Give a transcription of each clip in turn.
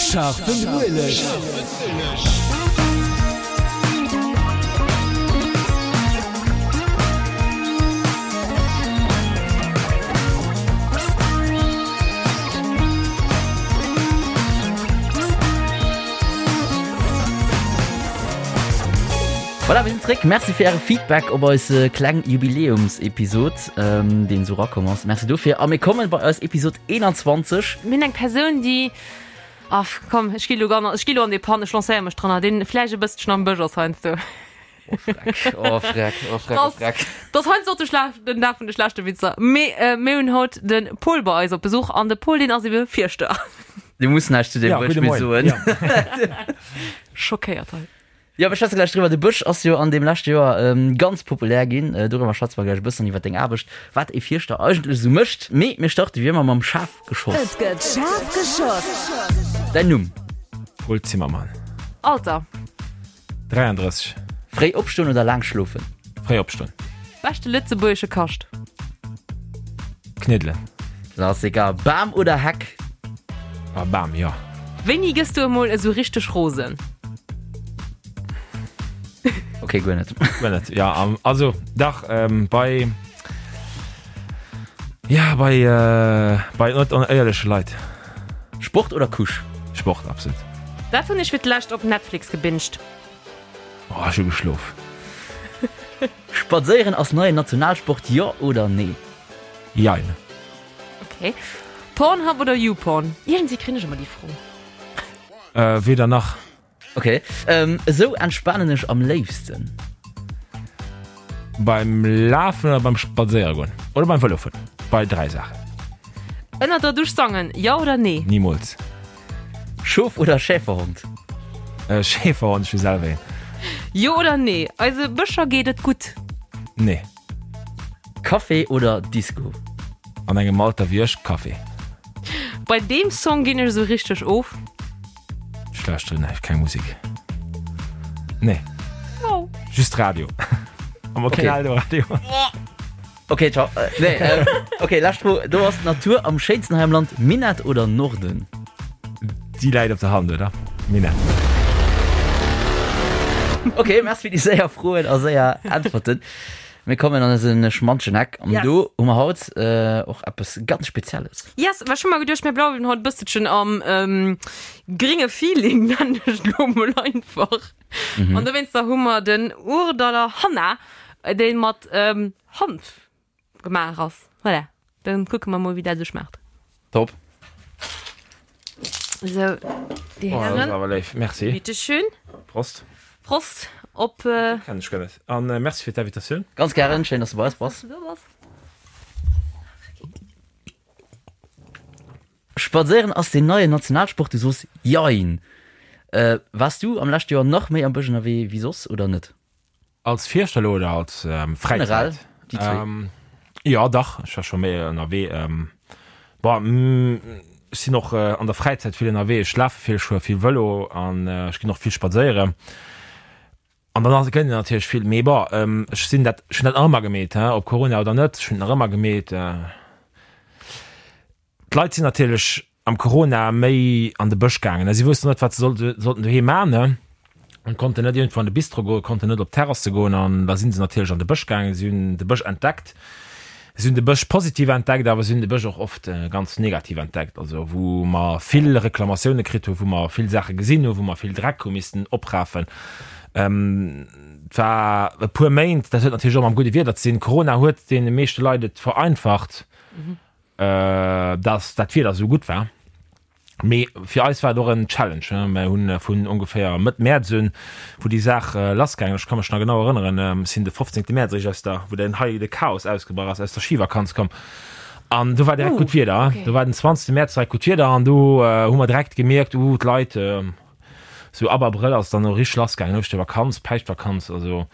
Scharfen Ueleg. Voilà, mir sinn zréck. Merci fir äre Feedback op eis kleng Jubiläumsepisod, deen esou erakomm ass. Merci dofir. A mir kommen bei eis Episod 21. Mir hunn eng Persoun, déi, ah komm, ech gi lo gan, ech gi lo an dee Pan, ech lancéiere mech dranner, deen vläicht e bësselchen am Bësch ass heiansdo. Oh Freck, oh Freck, oh Freck, oh Freck. Dat ass heiansdo och de Schla den Dag vun de schlechte Witzer. Mee mir hunn haut de Paul bei eis op Besuch an de Paul, deen ass ebe Fierschter. Du muss näischt zu deem Ja, Wuertspill gudde Moien. soen. Ja. Schockéiert hei. Jo, mir schwätze gläich driwwer. De Bësch ass jo an deem leschte Joer ganz populär ginn. Doriwwer schwätze mer gläich e bëssen, iwwer deng Aarbecht, wat ee Fierschter eigentlech esou mécht. Mee mir starte wéi ëmmer mam Schafgeschoss. Et gëtt schaarf geschoss. Däin Numm? Paul Zimmermann. Alter? 33. Fréi opstoen oder laang schlofen? Fréi opstoen. Beschte lëtzebuergesche Kascht? Kniddelen. Klassiker. Bam oder Heck? Ah, Bam, jo. Wéini gëss du emol esou richteg rosen? Ok, guer net. Guer net, ja. Also, dach, bei, ja, bei, bei net onéierleche Leit. Sport oder Couche? Sport, absolut. Wat hunn ech fir d'lescht op Netflix gebinged? Oh, ech hu geschlof. Spadséieren ass neien Nationalsport, jo oder nee? Jein. Ok. Pornhub oder YouPorn? Iergendwéi kréien ech ëmmer déi Fro. Weder nach. Ok. Esou entspanen ech am léifsten. Beim Lafen oder beim Spadséiere goen. Oder beim Vëlo fueren. Bei 3 Saachen. Ënner der Dusch sangen, jo oder nee? Nimools. Schof oder Schäferhond? Schäferhond, ech hu selwer een. Jo oder nee, eise Bëscher geet et gutt? Nee. Café oder Disco? An engem Alter wéi ech, Café. Bei deem Song ginn ech esou richteg of. Ech lauschteren näischt, keng Musek. Nee. Oh. Just Radio. Awer keen Eldoradio. Ok, ciao. Nee, ok, lescht Fro. Do ass d'Natur am schéinsten hei am Land, Minett oder Norden? Déi läit op der Hand, oder? Minett. Ok, merci fir déi séier Froen a séier Äntwerten. Mir kommen an eise schmantschen Eck an Yes. do hu mer haut och eppes ganz Spezielles. Yes, well ech hu mer geduecht, mir bleiwen haut e bësselchen am gringe Feeling, nennen ech et elo mol einfach. An dowéinster hu mer den Ourdaller Hanna, dee mat Hanf gemaach ass. Voilà, dann kucke mer mol wéi dat esou schmaacht. Top. Sou, déi Oh, dat ass Hären. awer léif. Merci. Bitte schön. Prost. Prost op. Kennen ech guer net. An merci fir d'Invitatioun. Ganz gären, schéin dass du bei eis bass. Do bass. Spadséieren ass deen neien Nationalsport, du soos jein. Waars du am leschte Joer nach méi am Bësch ënnerwee wéi soss oder net? Als Fierschter elo oder als Fräizäit? Generell, déi zwéi. Jo, dach, ech war scho méi ënnerwee. Bon, ech sinn och an der Fräizäit vill ënnerwee. Ech lafe vill, ech fuere vill Vëlo an ech ginn och vill spadséieren. An dann ass, gëtt een natierlech vill. Mee bon, ech sinn dat, ech hunn dat nach ëmmer gemeet, ob Corona oder net, ech hunn et nach ëmmer gemeet. D'Leit sinn natierlech am Corona méi an de Bësch gaangen. Si woussten net, wat se sollten doheem maachen an konnten net iergendwou an de Bistro goen, konnten net op d'Terrasse goen an da sinn se natierlech an de Bësch gaangen. Si hunn de Bësch entdeckt. Si hunn de Bësch positiv entdeckt, awer si hunn de Bësch och oft ganz negativ entdeckt, also wou mer vill Reklamatioune kritt hunn, wou mer vill Saache gesinn hunn, wou mer vill Dreck hu missten oprafen. Et war e puer Méint, dat huet natierlech och mam gudde Wieder ze dinn. Corona huet deene meeschte Leit et vereinfacht. dass dat Wieder esou gutt war. Mee fir eis war et och en Challenge. Mir hunn vun ongeféier Mëtt Mäerz un, wou déi Saach lassgaangen ass, ech ka mech nach genau erënneren, ech sinn de 15. Mäerz eréischt aus der, wou den hei de Chaos ausgebrach ass, aus der Schivakanz komm an do war direkt gutt Wieder. Do war den 20. Mäerz direkt gutt Wieder an do hu mer direkt gemierkt, uh, d'Leit, sou ab Abrëll ass et dann och richteg lassgaangen, Ouschtervakanz, Päischtvakanz, also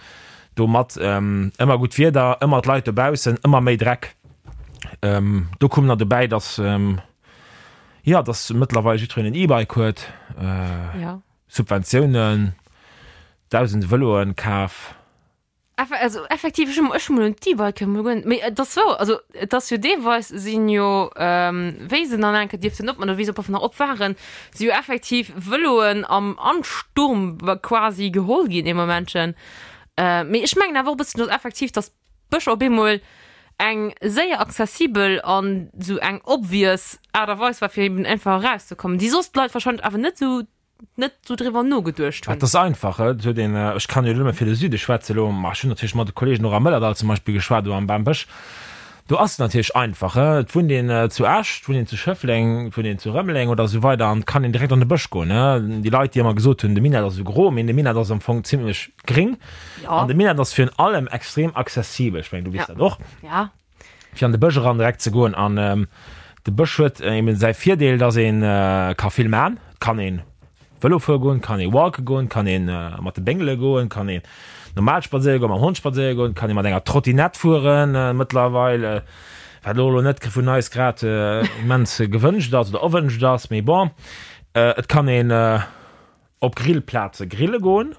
domat ëmmer gutt Wieder, ëmmer d'Leit dobaussen, ëmmer méi Dreck. Ähm, do koum nach dobäi, dass ähm, ja, dass mëttlerweil jiddwereen en E-Bike huet, äh, Ja. Subventiounen, dausende Vëloen kaf. Also effektiv, ech hunn ech hunn mol un d'E-Bike mol guer net, mee et ass wouer, also et ass jo deelweis sinn jo, wéi se dann eng Kéier dierften opman oder wéi se op nach op waren, si jo effektiv Vëloen am Ansturm quasi geholl ginn ee Momentchen. Mee ech mengen awer och e bëssen, datt effektiv, datt d'Bëscher op eemol eng séier accessibel an esou eng obvious Aart a Weis war fir eben einfach erauszekommen, déi soss d'Leit wahrscheinlech awer net esou net sou driwwer nogeduecht hunn. Et ass einfach, et huet een, ech kann jo nëmme fir de Süde schwätze elo, ma ech hunn natierlech mat de Kollegen och am Mëllerdall zum Beispill geschwat oder am Bambësch, do ass et natierlech einfach, et wunnt een zu Esch, et wunnt een zu Schëffleng, et wunnt een zu Rëmeleng oder esou weider an et kann een direkt an de Bësch goen. Déi Leit, déi ëmmer gesot hunn, de Minett ass esou gro, mee de Minett ass am Fong zimlech gréng an de Minett ass virun allem extrem accessibel, ech mengen, du weess dat och. Fir an de Bësch eran direkt ze goen. An de Bësch huet eben säi Virdeel, dass ee ka vill man. Et kann ee Vëlo fuere goen, kann ee walke goen, kann ee mat de Béngele goen, kann een normal spadséiere goen, mam Hond spadséiere goen, kann ee mat enger Trottinett fueren mëttlerweil, wat elo net vun eis grad immens gewënscht ass oder erwënscht ass, mee bon. Et kann een op Grillplaze grille goen.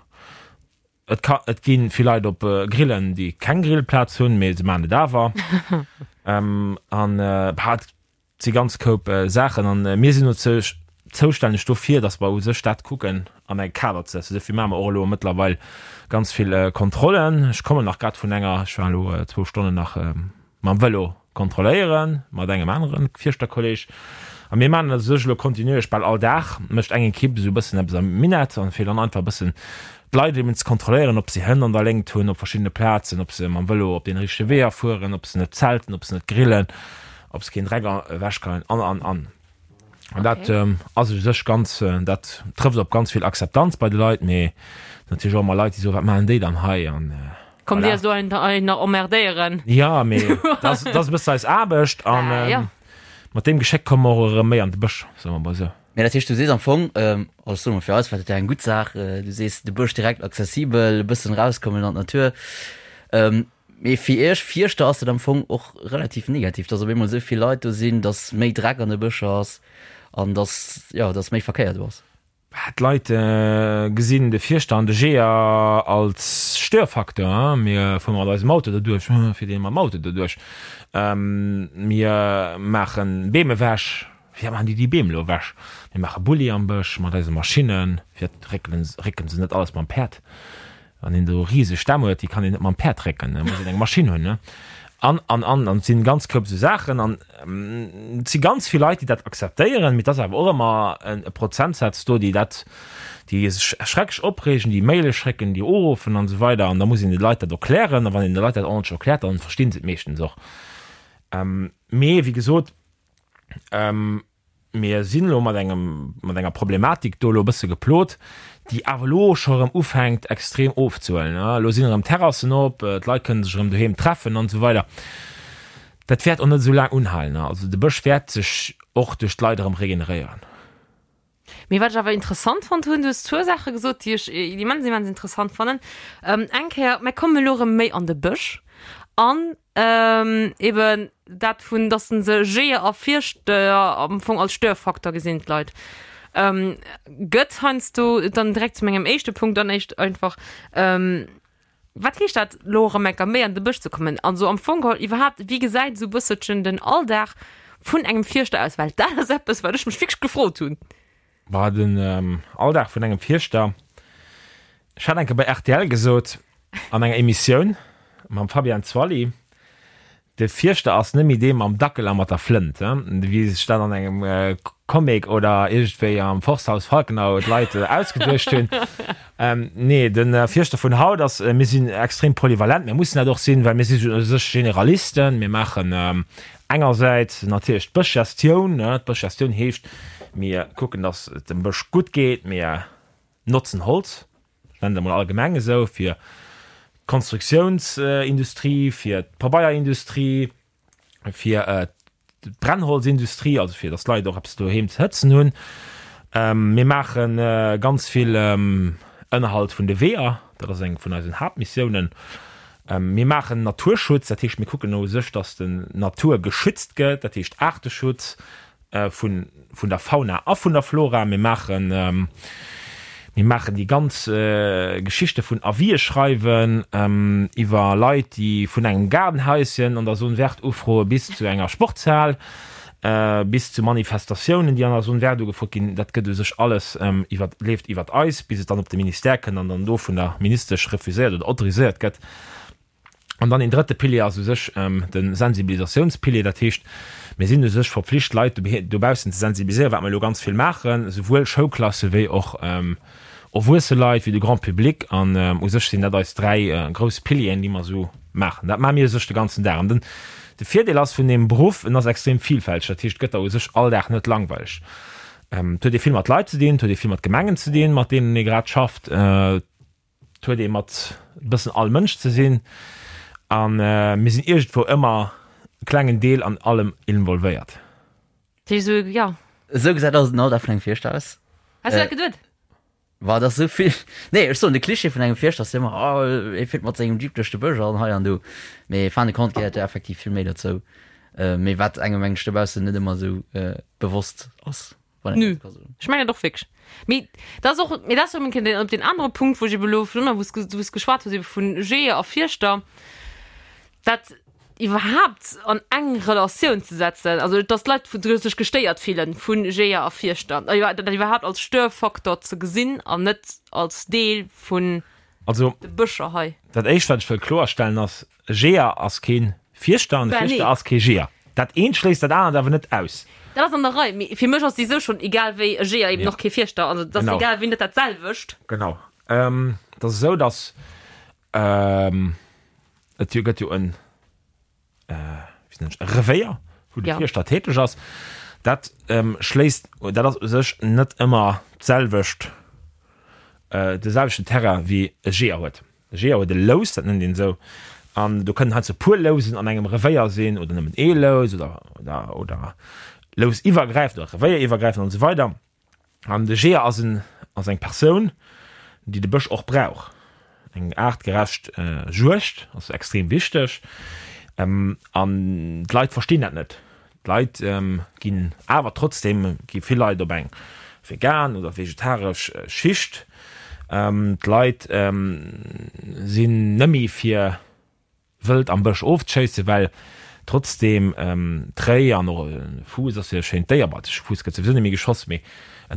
Et ka, et gi vill Leit op Grillen, déi keng Grillplaz hunn, mee se maachen et awer. An bah, et si ganz Koup Saachen. An mir sinn dozou zoustänneg dofir, datt mer u sech dat kucken an e Kader ze setzen. Dofir maache mer och elo mëttlerweil ganz vill Kontrollen. Ech kommen nach grad vun enger, ech war elo zwou Stonnen nach mam Vëlo kontrolléieren, mat engem anere Fierschterkolleg. A mir maachen dat u sech elo kontinuierlech, bal all Dag mécht eng Ekipp esou e bëssen eppes am Minett an fir dann einfach e bëssen d'Leit eben ze kontrolléieren, ob se Hënn an der Léngt hunn op verschiddene Plazen, ob se mam Vëlo op den richtege Weeër fueren, ob se net zelten, ob se net grillen, ob se keen Dreck ewechgeien an, an, an. An dat ass u sech ganz, dat trëfft op ganz vill Akzeptanz bei de Leit, mee natierlech och ëmmer Leit, déi soen, wat maachen déi dann hei an Kommt Dir do nach emmerdéieren? Jo, mee dat ass e bëssen eis Aarbecht an mat deem Geschéck komme mer och erëm méi an de Bësch, soe mer mol esou. Mee dat heescht, du sees am Fong, also soe mer fir eis war dat ja eng gutt Saach, du sees de Bësch direkt accessibel, e bëssen erauskommen an d'Natur. Mee fir iech Fierschter ass dat am Fong och relativ negativ, dass op eemol esou vill Leit do sinn, dass méi Dreck an de Bëscher ass an dass, jo, dass méi Verkéier do ass. D'Leit gesinn de Fierschter an de Jeeër als Störfaktor. Mir fuere mat eisem Auto doduerch, fiert een mam Auto doduerch. Mir maache Beem ewech, wéi maachen déi déi Beem elo ewech? Mir maache Bulli am Bësch mat eise Maschinnen, firwat réckele se net alles mam Päerd? Wann een do riseg Stämm huet, déi kann een net mam Päerd récken, da muss een eng Maschinn hunn, ne? An, an, an, an et sinn ganz Koup esou Saachen an et si ganz vill Leit, déi dat akzeptéieren, mee et ass awer och ëmmer e Prozentsaz do, déi dat, déi sech schrecklech opreegen, déi Maile schécken, déi uruffen an esou weider an da muss een de Leit dat erklären a wann een de Leit dat ordentlech erkläert, dann verstinn se et meeschtens och. Mee wéi gesot, Mir sinn elo mat engem, mat enger Problematik do elo e bësse geplot, déi awer elo scho erëm ufänkt extrem ofzehuelen. Elo sinn erëm Terrassen op, d'Leit kënne sech erëm doheem treffen an esou weider. Dat wäert och net esou laang unhalen. Also de Bësch wäert sech och duerch d'Leit erëm regeneréieren. Mee wat ech awer interessant fonnt hunn, du hues zwou Saache gesot, déi ech immens, immens interessant fannen. Eng Kéier, mir kommen elo erëm méi an de Bësch an eben dat vun, dass se Jeeër a Fierschter am Fong als Störfaktor gesinn, d'Leit. Gëtt heiansdo dann direkt zu mengem éischte Punkt dann éischt einfach, Wat heescht dat elo erëm eng Kéier méi an de Bësch ze kommen? Also am Fong geholl iwwerhaapt, wéi gesäit esou e bësselchen den Alldag vun engem Fierschter aus? Well dat ass eppes, wat ech mech wierklech gefrot hunn. Bah, den Alldag vun engem Fierschter, ech hat eng Kéier bei rtl gesot an enger Emissioun mam Fabian Zwally, De Fierschter ass net méi dee mam Dackel a mat der Flënt, wéi sech dat an engem Comic oder iergendwéi am Forsthaus Falkenau d'Leit ausgeduecht hunn. Nee, de Fierschter vun haut ass, mir sinn extrem polyvalent, mir mussen dat och sinn, well mir si u sech Generalisten. Mir maachen engersäits natierlech d'Bëschgestioun. D'Bëschgestioun heescht, mir kucken, datt et dem Bësch gutt geet, mir notzen Holz, ech nennen et emol allgemeng esou, fir d'Konstruktiounsindustrie, fir d'Pabeierindustrie, fir d'Brennholzindustrie, also fir datt d'Leit och eppes doheem ze hëtzen hunn. Mir maache ganz vill Ënnerhalt vun de Weeër, dat ass eng vun eisen Haaptmissiounen. Mir maachen Naturschutz, dat heescht mir kucken u sech, datt d'Natur geschützt gëtt, dat heescht Aarteschutz, vun, vun der Fauna a vun der Flora. Mir maachen, mir. Mir maachen déi ganz Geschichte vun Avisë schreiwen, iwwer Leit, déi vun engem Gaardenhaischen an der Zone verte ufroe bis zu enger Sportshal, bis zu Manifestatiounen, déi an der Zone verte ugefrot ginn. Dat gëtt u sech alles iwwer, leeft iwwert eis, bis et dann op de Ministère kënnt an dann do vun der Ministesch refuséiert oder autoriséiert gëtt. An dann een drëtte Pilier ass u sech de Sensibilisatiounspilier. Dat heescht, mir sinn u sech verpflicht, d'Leit dobaussen ze sensibiliséieren, wat mer elo ganz vill maachen, souwuel Schoulklasse wéi och erwuesse Leit, wéi de Grand public. An u sech sinn dat eis dräi grouss Pilieren, déi mer esou maachen. Dat maache mir u sech de ganzen Dag. An den, de Virdeel ass vun deem Beruff, en ass extrem vielfälteg. Dat heescht, et gëtt der u sech all Dag net langweileg. Et huet ee vill mat Leit ze dinn, et huet ee vill mat Gemengen ze dinn, mat deenen ee grad schafft. Et huet ee mat e bëssen all Mënsch ze sinn a mir sinn iergendwou ëmmer e klengen Deel an allem involvéiert. Dat heescht esou, jo. Esou gesäit also den Alldag vun engem Fierschter aus. Has du dat geduet? Wa, dat ass esou vill. Nee, ech soen, de Klischee vun engem Fierschter ass jo ëmmer, oh, e fiert mat sengem Jeep duerch de Bësch an hei an do. Mee fin de compte gehéiert jo effektiv vill méi dozou. Mee wat engem mengen ech dobaussen net ëmmer esou bewosst ass. Nö. Ech mengen et och wierklech. Mee dat ass och, mee dat ass erëm eng Kéier op deen anere Punkt, wou ech ebe lo virun, wou s wou s geschwat hues ebe vun Jeeër a Fierschter, dat iwwerhaapt an eng Relatioun ze setzen, also datt d'Leit vu sech gestéiert fillen vu Jeeër a Fierschter, dat iwwerhaapt als Störfaktor ze gesinn an net als Deel vun Also, de Bëscher hei. dat Éischt, wat ech wëll kloerstellen, ass, E Jeeër ass kee Fierschter an e Fierschter ass kee Jeeër. Dat eent schléisst dat anert awer net aus. Dat ass an der Rei, mee fir mech ass déi sou schonn egal wéi e Jeeër eben och kee Fierschter. Also dat ass egal wéi net dat selwecht. Genau. Et ass esou, datt et jo gëtt jo en, wéi nennen ech, e Revéier, wou de Fierschter täteg ass. Dat schléisst, dat ass u sech net ëmmer d'selwecht, de selwechten Terrain wéi e Jeeër huet. E Jeeër huet e Lous, dat nennt een esou, an do kënnen heiansdo e puer Lousen an engem Revéier sinn oder nëmmen ee Lous oder, oder, oder lousiwwergräifend oder revéieriwwergräifend an esou weider. An de Jeeër ass en, ass eng Persoun, déi de Bësch och brauch. Eng aartgerecht Juegd ass extrem wichteg an d'Leit verstinn dat net. D'Leit ginn awer trotzdeem gi vill Leit op eng vegan oder vegetaresch Schicht. D'Leit sinn nëmmi fir Wëld am Bësch ofzeschéissen, well trotzdeem d'Réi an och e Fuuss ass jo e schéint Déier, bon, de Fuuss gëtt souwisou net méi geschoss, mee e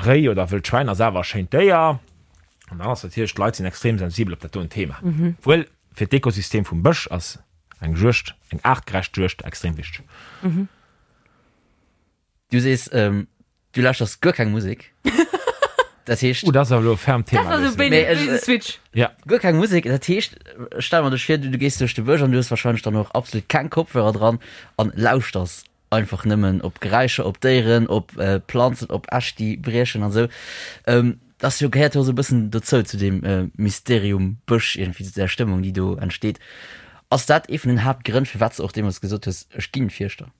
Réi oder e wëllt Schwäin ass awer e schéint Déier. An dann ass natierlech, d'Leit sinn extrem sensibel op dat doen Thema, obwuel fir d'Ekosystem vum Bësch ass eng Juegd, eng aartgerecht Juegd extrem wichteg. Du sees, du lauschters guer keng Musek. Dat heescht. Oh, dat ass awer elo e fermt Thema. Dat ass e béise Switch. Ja. Guer keng Musek, dat heescht, stell mer dech vir, du gees duerch de Bësch an du hues wahrscheinlech dann och absolut keng Kopfhörer dran an lauschters einfach nëmmen op Geräischer, op Déieren, op Planzen, op Äscht, déi briechen an esou. Dat ass jo, gehéiert jo esou e bëssen dozou, zu deem Mysterium Bësch iergendwéi, zu där Stëmmung, déi do entsteet. Ass dat ee vun den Haaptgrënn, firwat s de och deemools gesot hues, ech ginn Fierschter?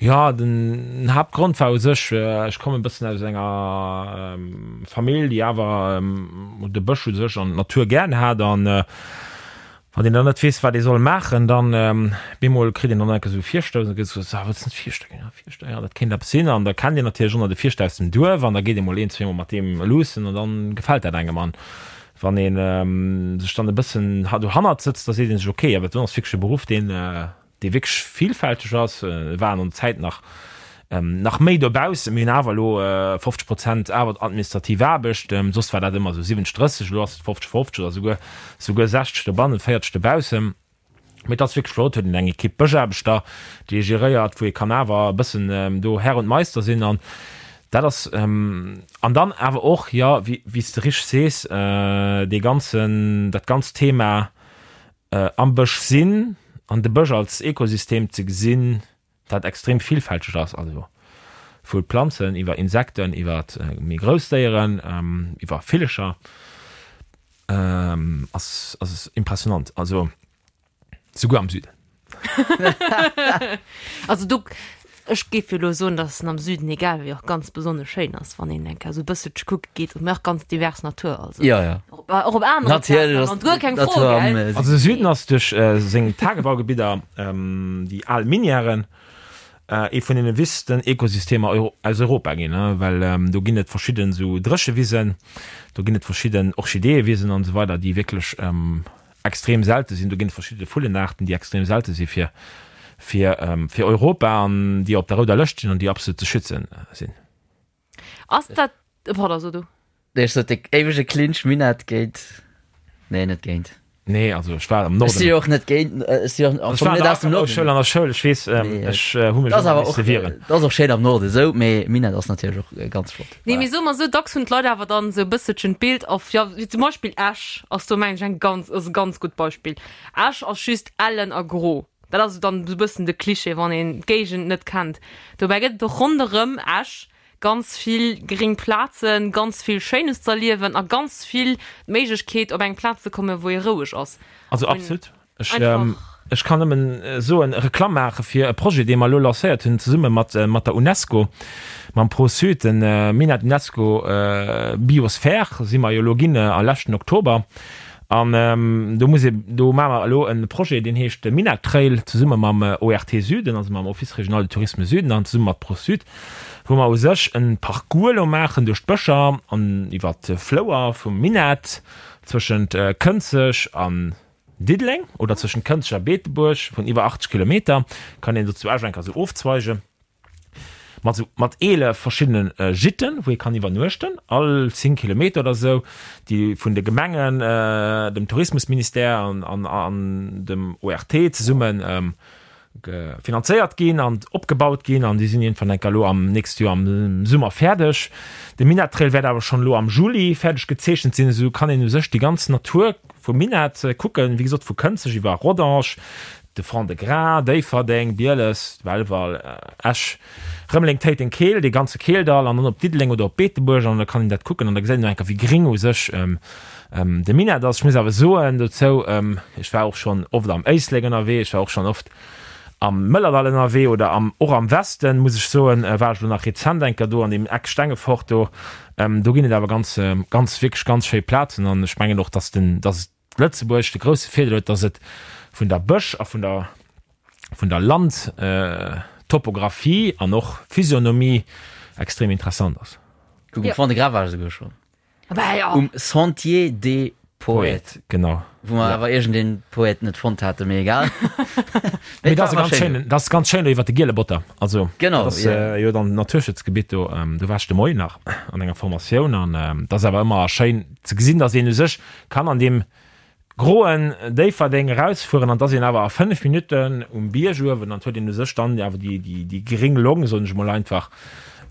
Jo, den Haaptgrond war u sech, ech kommen e bëssen aus enger Famill, déi awer de Bësch u sech an d'Natur gären hat. An wann een dann net weess, wat ee soll maachen, dann bemol kritt een dann enke sou Virstouss an da gëtt gesot, ah, wëlls net Fierschter ginn? Ja, Fierschter, ja, dat kéint eppes sinn. An da kennt een natierlech och nach de Fierschter aus dem Duerf an da geet ee mol een, zweemol mat deem luussen an dann gefält dat engem. An wann ee sech dann e bëssen dohannert sëtzt, da seet ee sech, okay, awer dat ass wierklech e Beruff, deen, dee wierklech villfälteg ass. Et waren an der Zäit nach nach méi dobaussen. Mir hunn awer elo 50 Prozent awer administrativ Aarbecht. Soss war dat ëmmer esou 70, 30, elo ass et 50, 50 oder souguer souguer 60 dobannen, 40 dobaussen. Mee et ass wierklech flott, huet een eng Ekipp Bëschaarbechter, déi ee geréiert, wou ee kann awer e bëssen do Herr und Meister sinn. An dat ass an dann awer och, jo, wéi wéi s de richteg sees, dee ganzen, dat ganzt Thema Am Bësch sinn an de Bësch als Ekosystem ze gesinn, dat extrem villfälteg ass, also vu Planzen iwwer Insekten, iwwer méi grouss Déieren, iwwer Villecher, ass ass impressionant, also souguer am Süden. Also do Ech géif jo elo soen, dass en am Süden, egal wéi, och ganz besonnesch schéin ass, wann een eng Kéier esou e bësselche kucke geet. Mee och ganz divers Natur, also Jo, jo. och och op anere Natierlech Plazen am ass Land, guer keng Fro, d'Natur am gell? Süden. Also de Süden ass duerch seng Tagebaugebidder, déi al Minièren. Ee vun deene wichtegsten Ekosystemer aus Europa ginn, well do ginn et verschidden esou Dréchewisen, do ginn et verschidden Orchideeëwisen an esou weider, déi wierklech extrem selte sinn. Do ginn et verschidde Vullenaarten, déi extrem selte si fir fir fir Europa an déi op der rouder Lëscht sinn an déi absolut ze schützen sinn. Ass dat, pardon, so du. Nee, ech sot de éiwege Clinch Minett géint, nee net géint. Nee, also ech war am Norden. Ech si jo och net géint, ech si och am Fong net aus dem Norden. Ech war an der Schoul, ech weess, ech hu mech ëmmer misse wieren. Dat ass och schéin am Norden esou, mee Minett ass natierlech och ganz flott. Nee, mee soe mer esou, dacks hunn d'Leit awer dann esou e bësselchen d'Bild of, jo, wéi zum Beispill Esch ass do mengen ech eng ganz, ass e ganz gutt Beispill. Esch ass just ellen a gro. Dat ass esou dann esou e bëssen de Cliché, wann een d'Géigend net kennt. Dobäi gëtt et och ronderëm Esch Ganz vill gréng Plazen, ganz vill Schéines z'erliewen a ganz vill d'Méiglechkeet op eng Plaz ze kommen, wou ee roueg ass. Also absolut. Ech, ech kann nëmmen soen, Reklamm maache fir e Projet, dee mer elo lancéiert hunn zesumme mat, mat der UNESCO, mam Pro-Sud, den Minett UNESCO Biosphere si mer jo elo ginn a leschten Oktober. An do muss ee, do maache mer elo e Projet, deen heescht Minett Trail, zesumme mam ORT Süden, also mam Office Régional du Tourisme Süden an zesumme mat Pro-Sud. wou mer u sech en Parcours elo maachen duerch d'Bëscher an iwwert d'Flouer vum Minett zwëschent Kënzeg an Diddeleng oder zwëschent Kënzeg a Beetebuerg vun iwwer 80 Kilometer, kann een do zu Esch enker esou ofzweige mat esou mat 11 verschiddene Gitten, wou ee kann iwwernuechten, all 10 Kilometer oder esou, déi vun de Gemengen, dem Tourismusministère an an dem ORT zesummen finanzéiert ginn an opgebaut ginn an déi sinn iergendwann enker elo am nächste Joer am Summer fäerdeg. De Minett Trail wäert awer schonn elo am Juli fäerdeg gezeechent sinn. Esou kann een u sech déi ganz Natur vum Minett kucken, wéi gesot vu Kënzeg iwwer Rodange, de Fond-de-Gras, Déifferdeng, Bieles, Belval, Esch, Rëmeleng, Téiteng, Keel, dee ganze Keeldall an dann op Diddeleng oder op Beetebuerg an da kann een dat kucken an da gesäit een och enker wéi gréng u sech de Minett ass. Ech muss awer soen dozou, ech war och schonn oft am Éislek ënnerwee, ech war och schonn oft am Mëllerdall ënnerwee oder am, och am Westen, muss ech soen, war ech elo nach rezent enker do an deem Eck Stengefort do. Do ginn et awer ganz, ganz, wierklech ganz schéi Plazen an ech mengen och, dass den, dass Lëtzebuerg de grousse Virdeel huet, dass et vun der Bësch a vun der, vun der Landtopographie an och Physionomie extrem interessant ass. Kuck, um Fond-de-Gras war ech esouguer schonn. Um Sentier des Poètes. Genau. Wou mer awer iergendeen Poète net fonnt haten, mee egal. Mee dat ass e ganz schéinen, dat ass ganz schéin do iwwer de Giele Botter. Also, Genau, dat ass jo dann Naturschutzgebitt do. Do war ech de Moien nach an enger Formatioun an dat ass awer ëmmer schéin ze gesinn, dass een u sech kann an deem groen Déifferdeng erausfueren an et ass een awer a 5 Minutten um Bierg uewen an et huet een u sech dann awer déi, déi, déi gréng Long, soen ech emol einfach,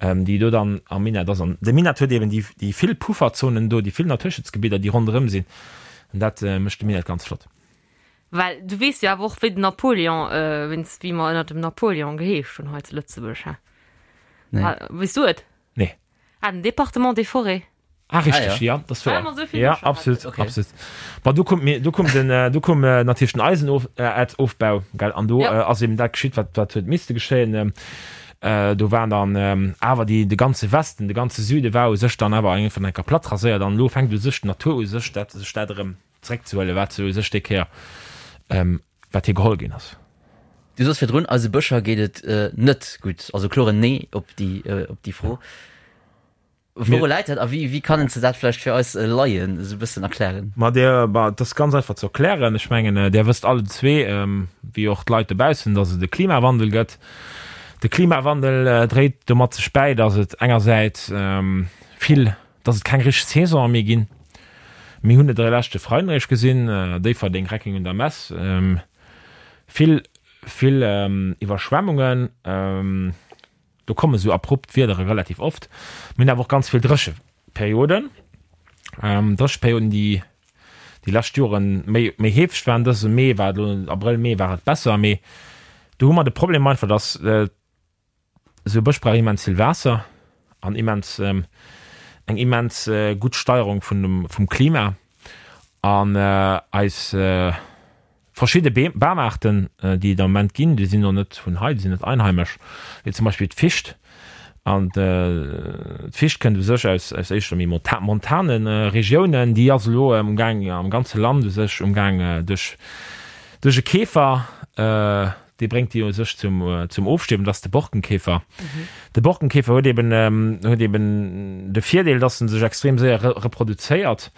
déi do dann am Minett ass. An de Minett huet eben déi, déi vill Pufferzonen do, déi vill Naturschutzgebidder, déi ronderëm sinn an dat mécht de Minett ganz flott. Well du weess jo awer och, wéi den Napoleon, wéinst wéi mer ënnert dem Napoleon geheescht hunn hei zu Lëtzebuerg, hä? Nee. Weess du et? Nee. Ah, den Département des Forêts. Ah, richtig, ah, ja. ja das war. Ja, absolut, okay. absolut. Ma du kommt mir, du kommt den, äh, du komm äh, natürlich den Eisenerzofbau, äh, gell? An du ja. äh, ass eben dat geschitt, wat, wat huet misste geschéien. Ähm, äh, do waren dann ähm, awer die, de ganze Westen, de ganze Süde war u sech dann awer eng vun enker platt raséiert an lo fänkt u sech d'Natur u sech dat sech dat erëm zréckzehuelen, wat se u sech déi Kéier ähm, wat hir geholl ginn ass. Du soss virdrun, eise Bëscher geet et äh, net gutt. Also kloren Nee op déi, äh, op déi Fro. Wouru läit dat a wéi, wéi kann s de dat vläicht fir eis Laien esou e bëssen erklären? Ma Dir, ma et ass ganz einfach ze erklären. Ech mengen, Dir wësst allen zwee, wéi och d'Leit dobaussen, datt et e Klimawandel gëtt. De Klimawandel dréit domat sech bäi, datt et engersäits vill, datt et keng richteg Saisonen méi ginn. Mir hunn et de leschte Freiden eréischt gesinn, Déifferdeng, Reckeng un der Mess, vill, vill Iwwerschwemmungen. Do komme sou abrupt Wiedere relativ oft. Mir hunn awer och ganz vill Drécheperioden. Drécheperioden, déi déi lescht Jore méi, méi heefeg waren. Dëse Mee war et elo, Abrëll, Mee war et besser, mee do hu mer de Problem einfach, datt esou e Bësch brauch immens vill Waasser an immens, eng immens gutt Steierung vun dem, vum Klima. An eis Verschidde Bamaarten, déi et am Moment ginn, déi sinn och net vun hei, déi sinn net einheimesch, wéi zum Beispill d'Ficht. An d'Ficht kënnt u sech aus éischter méi montane Regiounen. Déi ass elo amgaang am ganze Land u sech umgaang duerch e Käfer. dee bréngt déi u sech zum, zum Ofstierwen, dat ass de Borkenkäfer. De Borkenkäfer huet eben, huet eben de Virdeel, dass en sech extrem séier reproduzéiert,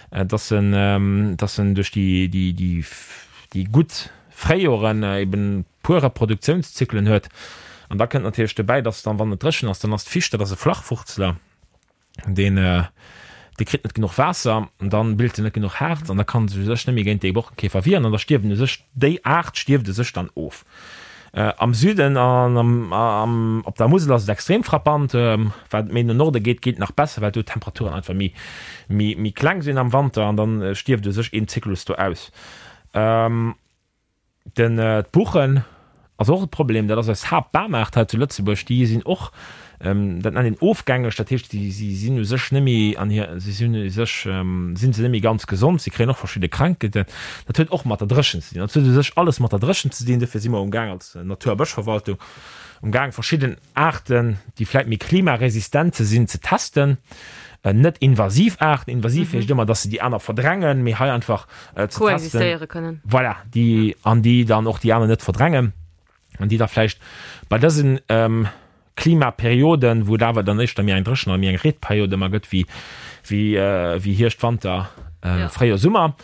dass en, dass en duerch déi, déi, déi, déi gutt Fréijoren eben puer Reproduktiounszyklen huet. An da kënnt natierlech dobäi, dass dann, wann et dréchen ass, dann ass d'Ficht, dat ass e Flachwurzler, deen dee kritt net genuch Waasser an dann bilt en net genuch Harz an da kann se sech net méi géint dee Borkenkäfer wieren an da stierwen u sech déi Aart stierft u sech dann of. Am Süden an am am op der Musel ass et extrem frappant, wat méi no Norde geet, geet nach besser, well do d'Temperaturen einfach méi méi méi kleng sinn am Wanter an dann stierft u sech een Zyklus do aus. Den d'Buchen ass och e Problem, dat ass eis Haaptbamaart hei zu Lëtzebuerg. Déi sinn och, dat nennt een ofgängeg, dat heescht, si si sinn u sech net méi an hir, si sinn u sech, sinn se net méi ganz gesond, si kréien och verschidde Krankheeten. Dat huet och mat der Dréchent ze dinn. Dat huet u sech alles mat der Dréchent ze dinn. Dofir si mer umgaang als Natur a Bëschverwaltung umgaang verschidden Aarten, déi vläit méi klimaresistent ze sinn, ze testen. Net invasiv Aarten, invasiv heescht ëmmer, dass se déi aner verdrängen, mee hei einfach ze testen. Koexistéiere kënnen. Voilà, déi, an déi dann och déi aner net verdrängen an déi da vläicht bei dësen Klimaperioden, wou et awer dann éischter méi eng dréchen oder méi eng Reetperiod ëmmer gëtt wéi, wéi Hierscht, Wanter, Fréijoer, Summer,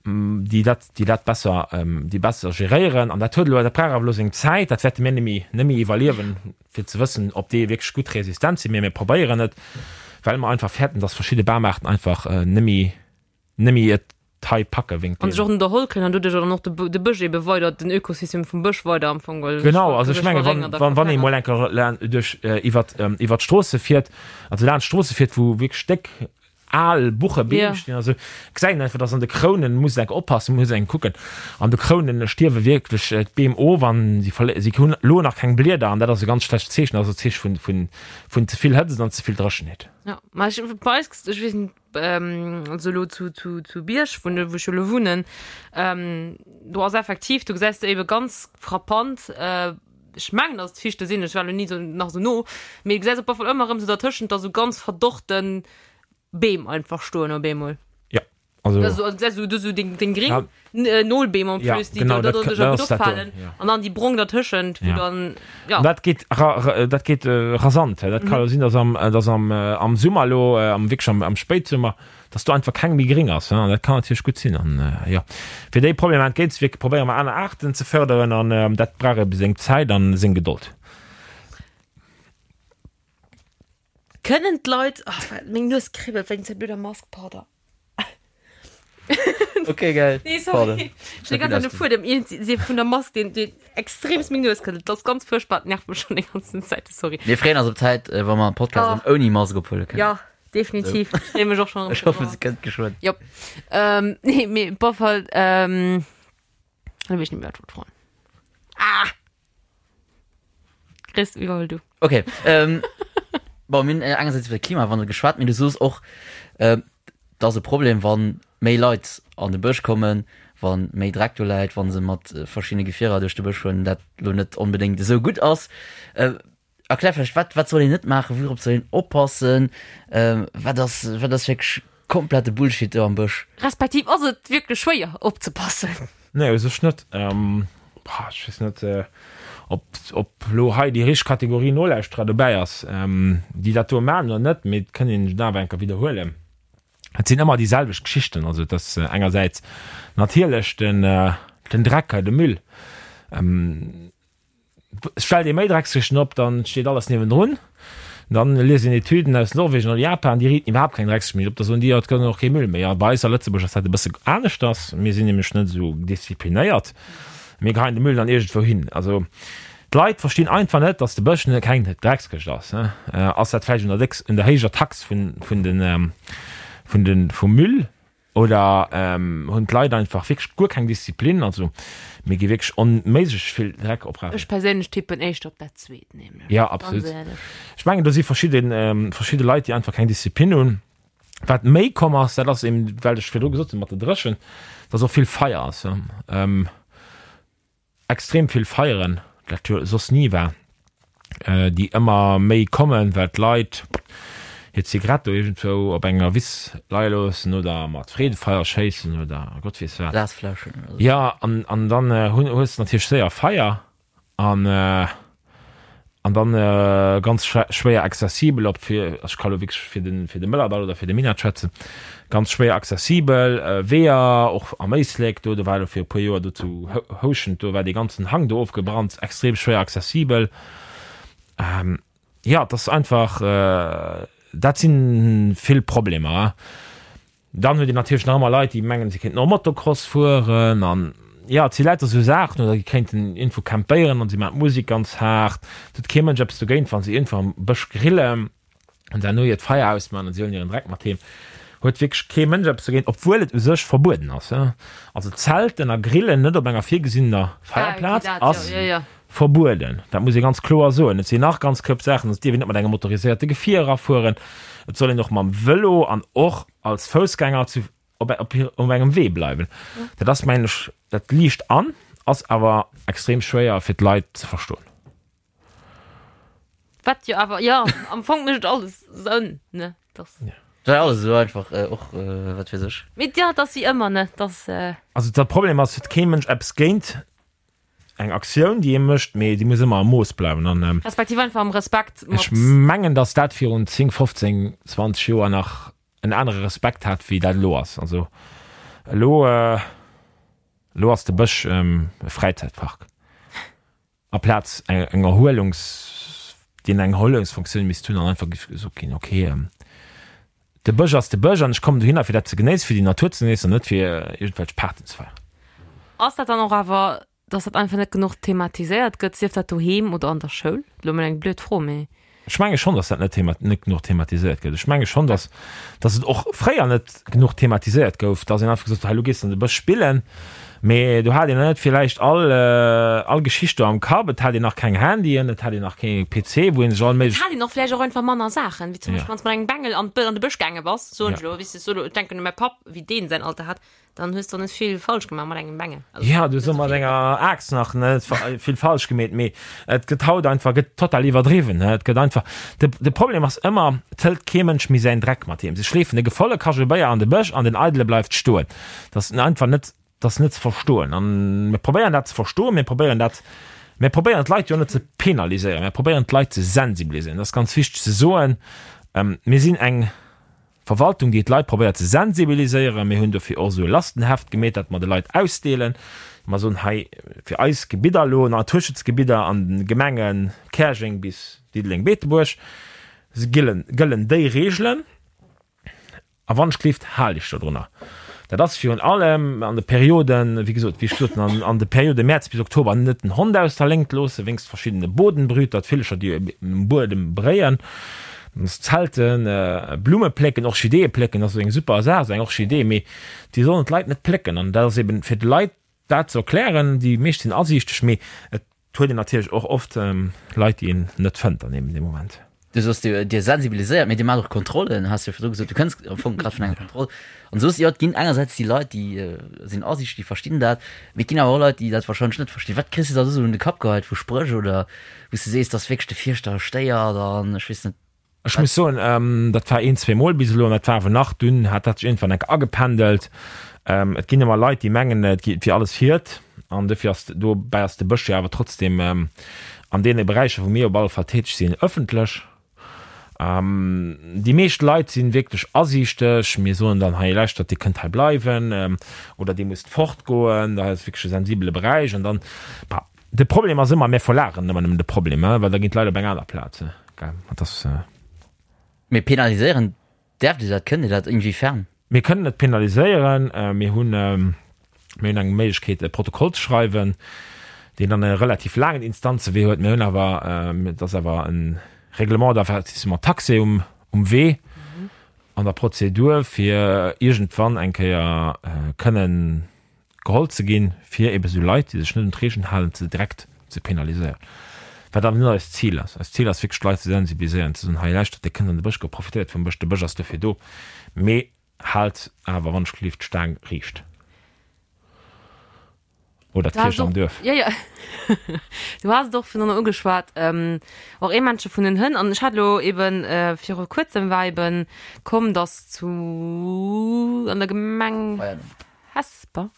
déi dat, déi dat besser, déi besser geréieren. An dat huet elo, dat brauch awer elo seng Zäit, dat wäerte mir net méi, net méi iwwerliewen, fir ze wëssen, ob déi wierklech gutt resistent sinn. Mee mir probéieren et, well mer einfach fäerten, dass verschidde Bamaarten einfach net méi, net méi et hei packe wéinst An sech och net erholl kréien an doduerch dann och de, de Bësch ebe weider, den Ökosystem vum Bësch weider am Fong geholl Genau, also ech menge wann, wann, wann ee mol eng Kéier duerch, iwwert, iwwert d'Stroosse fiert, also laanscht d'Stroosse fiert, wou wierklech déck al Buchebeem stinn, also gesäit een einfach, dass an de Krounen, muss een enk oppassen, muss een kucken, an de Krounen stierwe wierklech d'Beem of an si verlé si hunn elo nach keng Blieder an dat ass e ganz schlecht Zeechen, dat ass e Zeeche vun, vun, vun ze vill Hëtzt an ze vill Dréchenheet. Jo, ma ech, bei eis, ech weess net, also elo zu, zu, zu Bierg, wou, wou ech jo elo wunnen, do ass effektiv, do gesäis de ebe ganz frappant, ech mengen, dass et Fichte sinn, ech war elo ni esou nach esou no, mee du gesäis op alle Fall ëmmer erëm esou dertëschent da sou ganz verdorrten Beem einfach stoen op eemol. Ja, also. Also, also gesäis du do sou deng, deng gréng ja. Äh, Nolbeem en ja, plus, déi genau, do, dat, do, do, dat gutt ass dat do, opfalen. ja. An dann déi brong dertëschent, wou Ja. dann, ja. An dat geet ra, ra, dat geet äh, rasant. Dat kann jo sinn, dass am, dass am, äh, am Summer elo, äh, am wierklech am, am Spéitsummer, dass do einfach keng méi gréng ass. An dat kann natierlech gutt sinn. An jo, fir déi Problemer entgéintzewierken, probéiere mer aner Aarten ze fërderen an dat brauch ebe seng Zäit an seng Gedold. Kënnen d'Leit, oh, meng Nues kribbelt wéinst der blöder Mask, pardon. Ok, geil. Nee, sorry. Ech hunn déi ganz Zäit e Fuedem iergendwéi vun der Mask, deen, deen extremst meng Nues kribbelt. Dat ass ganz fuerchtbar, dat nervt mech schonn déi ganzen Zäit, sorry. Mir freeën eis op d'Zäit, wa mer e Podcast Oh. ouni Mask ophuele kënnen. Ja. Definitiv. Ech freeë mech och schon. Ech hoffen, se kënnt geschwënn. Jop. Ähm, nee, mee op alle Fall, ähm, lo weess ech net méi, wat ech wollt froen. Ah! Chris, iwwerhuel du. Okay. Ähm, bon, mir hunn engersäits iwwer de Klimawandel geschwat, mee du soos och, ähm, et ass e Problem, wann méi Leit an de Bësch kommen, wa méi Dreck do läit, wa se mat verschiddene Gefierer duerch de Bësch fueren, dat lo net onbedéngt esou gutt ass. Äh, Erklär vläicht, wat, wat soll een net maachen, wourop soll een oppassen, wat ass, wat ass wierklech komplette Bullshit do am Bësch? Respektiv ass et wierklech schwéier opzepassen? Nee, u sech net. Ech weess net, ob, ob elo hei déi richteg Kategorie Nolauschterer dobäi ass, déi dat do maachen oder net, mee et kënnt een et awer eng Kéier widderhuelen. Et sinn ëmmer déi selwecht Geschichten. Also et ass engersäits natierlech den, den Dreck hei, de Müll. Stellt ee méi Dreckskëschten op, dann steet alles niewendrun. Dann liest een Etüden aus Norwegen oder Japan, déi riiten iwwerhaapt keng Dreckskëscht méi op. Da soen déi, jo, et gëtt och kee Müll méi. A bei eis a Lëtzebuerg ass dat e bësse aneschters. Mir sinn nämlech net esou disziplinéiert. Mir geheien de Müll dann iergendwou hin. Also d'Leit verstinn einfach net, datt de Bësch keng Dreckskëscht ass. Ass dat vläicht un der décks, un der héijer Tax vun, vun den, vun den, vum Müll? Oder hunn d'Leit einfach wierklech guer keng Disziplin? Also mir gi wierklech onméiglech vill Dreck oprafen. Ech perséinlech tippen éischter op dat zweet nämlech. Jo, absolut. Ech mengen do si verschidde verschidde Leit, déi einfach keng Disziplin hunn. Wat méi komm ass, dat ass eben, well ech virdru gesot hunn mat der Dréchent, dass och vill Feier ass. Extrem vill Feieren, dat jo soss ni war, déi ëmmer méi kommen, well d'Leit hir Zigarett do iergendwou op enger Wiss leie loossen oder mat Freedefeier schéissen oder Gott weess wat. Glasfläschen oder sou. Jo, an, an dann hunn, hues de natierlech séier Feier. An an dann ganz schwéier accessibel, ob fir, ech ka lo wierklech fir de fir de Mëllerdall oder fir de Minett schwätzen, ganz schwéier accessibel Weeër, och am Éislek do, do war elo fir e puer Joer do zu Houschent, do war dee ganzen Hang do ofgebrannt, extrem schwéier accessibel. Jo, et ass einfach, dat si vill Problemer. Dann huet een natierlech nach ëmmer Leit, déi mengen, si kéinten och Motocross fueren an jo, et si lauter esou Saachen oder déi kéinten iergendwou campéieren an si maachen d'Musek ganz haart. Et huet kee Mënsch eppes dogéint, wa si iergendwou am Bësch grillen an herno hiert Feier ausmaachen an si huelen hiren Dreck mat heem. Huet wierklech kee Mënsch eppes dogéint, obwuel et u sech verbueden ass. Also Zelten a Grillen net op enger virgesinnener Feierplaz ass verbueden. Dat muss ee ganz kloer soen. Et sinn nach ganz Koup Saachen. Et dierf een net mat engem motoriséierte Gefier erafueren. Et soll een och mam Vëlo an och als Foussgänger zu, op, op, op engem Wee bleiwen. Dat ass, mengen ech, dat liicht an, ass awer extrem schwéier fir d'Leit ze verstoen. Wat jo awer, jo, am Fong mécht et alles Sënn, ne? Dass. Ja. Dat war alles esou einfach, och wat weess ech. Mee jo, et ass wéi ëmmer, ne? Dass. Also de Problem ass, huet kee Mënsch eppes géint eng Aktioun, déi ee mécht, mee déi muss ëmmer am Mooss bleiwen. An Respektiv einfach am Respekt mat. Ech mengen, datt dat virun 10, 15, 20 Joer nach en anere Respekt hat, wéi dat elo ass. Also elo, elo ass de Bësch e Fräizäitpark aplaz eng Erhuelungs, deen eng Erhuelungsfunktioun misst hunn an einfach géif gesot ginn, okay, de Bësch ass de Bësch an ech kommen dohinner, fir dat ze genéissen, fir déi Natur ze genéissen an net fir iergendwelch Partyen ze feieren. Ass dat dann och awer, dass dat einfach net genuch thematiséiert gëtt, sief dat doheem oder an der Schoul? Elo mol eng blöd Fro, mee. Ech menge schonn, dass dat net thema net genuch thematiséiert gëtt. Ech menge schonn, dass dass et och fréier net genuch thematiséiert gouf, dass een einfach gesot huet, hei elo gees de an de Bësch spillen, mee do hat een net villäicht all all Geschicht do am Kapp, et hat een nach keng Handyen, et hat een nach kee PC, wou ee sech all Et méiglech. hat een och vläicht och einfach manner Saachen, wéi zum Ja. Beispill wann s de mat engem Bengel an d'Bë an de Bësch gaange bass, soen ech Ja. elo, weess de, ech soe elo, ech denken u mäi Papp, wéi deen säin Alter hat, Dann hues du net vill falsch gemaach mat engem Bengel. Also, ja, du hues mat enger Aaxt nach net vill falsch gemeet, mee et gëtt haut einfach gëtt total iwwerdriwwen. Et gëtt einfach de, de Problem ass ëmmer, et hëlt kee Mënsch méi säin Dreck mat heem. Se schleefen de gevolle Kachelbéier an de Bësch an den eidele bleift stoen. Dat ass einfach net, dat ass net ze verstoen. An mir probéieren dat ze verstoen, mir probéieren dat, mir probéieren d'Leit jo net ze penaliséieren, mir probéieren d'Leit ze sensibiliséieren. Dat ass ganz wichteg ze soen. Mir sinn eng Verwaltung, déi d'Leit probéiert ze sensibiliséieren. Mir hunn dofir och esou e Lastenheft gemeet, dat mer de Leit ausdeelen. Mer soen hei fir eis Gebidder elo, Naturschutzgebidder an de Gemenge Käerjeng bis Diddeleng-Beetebuerg, gëllen, gëllen déi Reegelen. A wann ech gleeft, hal iech dodrunner. Dat ass virun allem an de Perioden, wéi gesot, wéi ech gesot hunn, an de Periode Mäerz bis Oktober net den Hond aus der Léngt loossen, wéinst verschiddene Bodenbrüter, d'Villecher, déi um Buedem bréien, Zelten, Blumme plécken, Orchideeë plécken ass esou eng super Saach, esou eng Orchidee, mee déi sollen d'Leit net plécken. An dat ass eben fir de Leit dat ze erklären, déi meescht sinn asiichteg, mee et huet een natierlech och oft Leit, déi een net fënnt an deem Moment. Du soos, Dir, Dir sensibiliséiert, mee Dir maacht och Kontrollen, has jo virdru gesot. Du kënns am Fong grad vun enger Kontroll. An du soos, jo, et ginn engersäits déi Leit, déi sinn asiichteg, déi verstinn dat, mee et ginn awer och Leit, déi dat warscheinlech net verstinn. Wat kriss de da esou un de Kapp geheit vu Spréch oder wou s de sees, dass wierklech de Fierschter stéiert an ech weess net. Ech muss soen, dat war een, zweemol bis elo an dat war awer nach, dunn hat dat sech iergendwann enk agependelt. Et ginn ëmmer Leit, déi mengen, et wier alles hiert an dofir ass, dobäi ass de Bësch jo awer trotzdem an deene Beräicher, wou mir op alle Fall täteg sinn, ëffentlech. Déi meescht Leit si wierklech asiichteg. Mir soen dann, hei lauschtert, Dir kënnt hei bleiwen oder Dir musst fortgoen, dat ass wierklech e sensibele Beräich an dann, bah, De Problem ass ëmmer, mir verlageren ëmmer nëmmen de Problem, well da ginn d'Leit op eng aner Plaz. Dat ass. Mee penaliséieren, däerft Dir dat? Kënnt Dir dat? Inwiefern? Mir kënnen net penaliséieren. Mir hunn, mir hunn eng Méiglechkeet, e Protokoll ze schreiwen, deen dann e relativ laangen Instanzewee huet. Mir hunn awer, et ass awer e Règlement d'avertissement taxé um, um Wee an der Prozedur, fir iergendwann eng Kéier kënnen geholl ze ginn, fir ebe sou Leit, déi sech net un d'Regeln halen, ze direkt ze penaliséieren. Wat awer net eist Zil ass. Eist Zil ass wierklech d'Leit ze sensibiliséieren, ze soen, hei lauschtert, Dir kënnt an de Bësch goen, profitéiert vum Bësch, de Bësch ass dofir do, mee haalt awer wann ech gelift d'Staang riicht. Oder d'Kierch am Duerf. Jo, jo. Du has et och virdrun ugeschwat, och ee Männche vun den Hënn. An ech hat elo eben viru kuerzem war eben komm, datt zu an der Gemeng Hesper.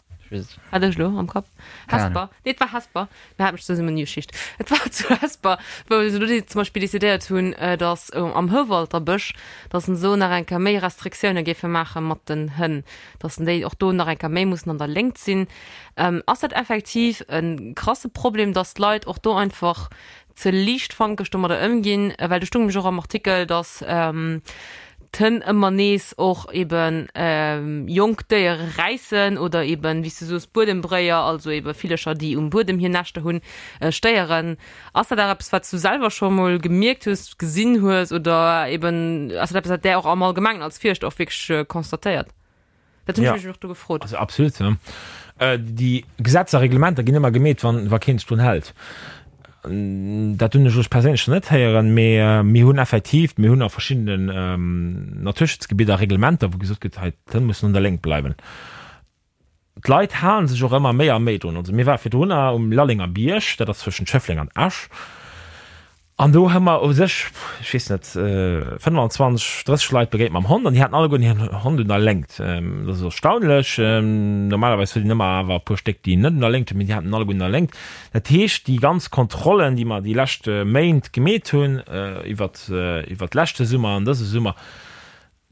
Hat ech elo am Kapp. Hesper. Nee, et war Hesper. Mir hat mech zesummen Geschicht. Et war zu Hesper, wou se do zum Beispill decidéiert hunn, datt am Houwalter Bësch, datt se do nach eng Kéier méi Restriktioune géife maache mat den Hënn, datt déi och do nach eng Kéier méi mussen an der Léngt sinn. Ass dat effektiv e krasse Problem, datt d'Leit och do einfach ze liichtfankeg domadder ëmginn, well do stoung nämlech och am Artikel, datt d'Hënn ëmmer nees och ebe jonk Déiere räissen oder eben, wéi s du soos, Buedembréier, also ebe Villercher, déi um Buedem hir Näschter hunn, stéieren. Ass dat awer eppes, wat s du selwer scho mol gemierkt hues, gesinn hues oder eben ass dat eppes, wat där och am Allgemengen als Fierschter och wierklech constatéiert? Dat hunn ech mech och do gefrot. Also absolut. Déi Gesetzer a Reglementer ginn ëmmer gemeet, wann wa keen sech drun hält. Dat hunn ech elo perséinlech nach net héieren, mee mir hunn effektiv, mir hunn a verschiddenen Naturschutzgebidder Reglementer, wou gesot gëtt, hei d'Hënn mussen un der Léngt bleiwen. D'Leit hale sech och ëmmer méi a méi drun. Also mir ware virdrunner um Lallenger Bierg, dat ass zwëschent Schëffleng an Esch. An do hu mer u sech, ech weess net, 25, 30 Leit begéint mam Hond an déi haten alleguerten hiren Hond un der Léngt. Dat ass erstaunlech. Normalerweis huet een ëmmer awer e puer Stéck, déi net un der Léngt hunn, mee déi haten en alleguerten un der Léngt. Dat heescht, déi ganz Kontrollen, déi mer déi lescht Méint gemeet hunn, iwwert, iwwert leschte Summer an dëse Summer,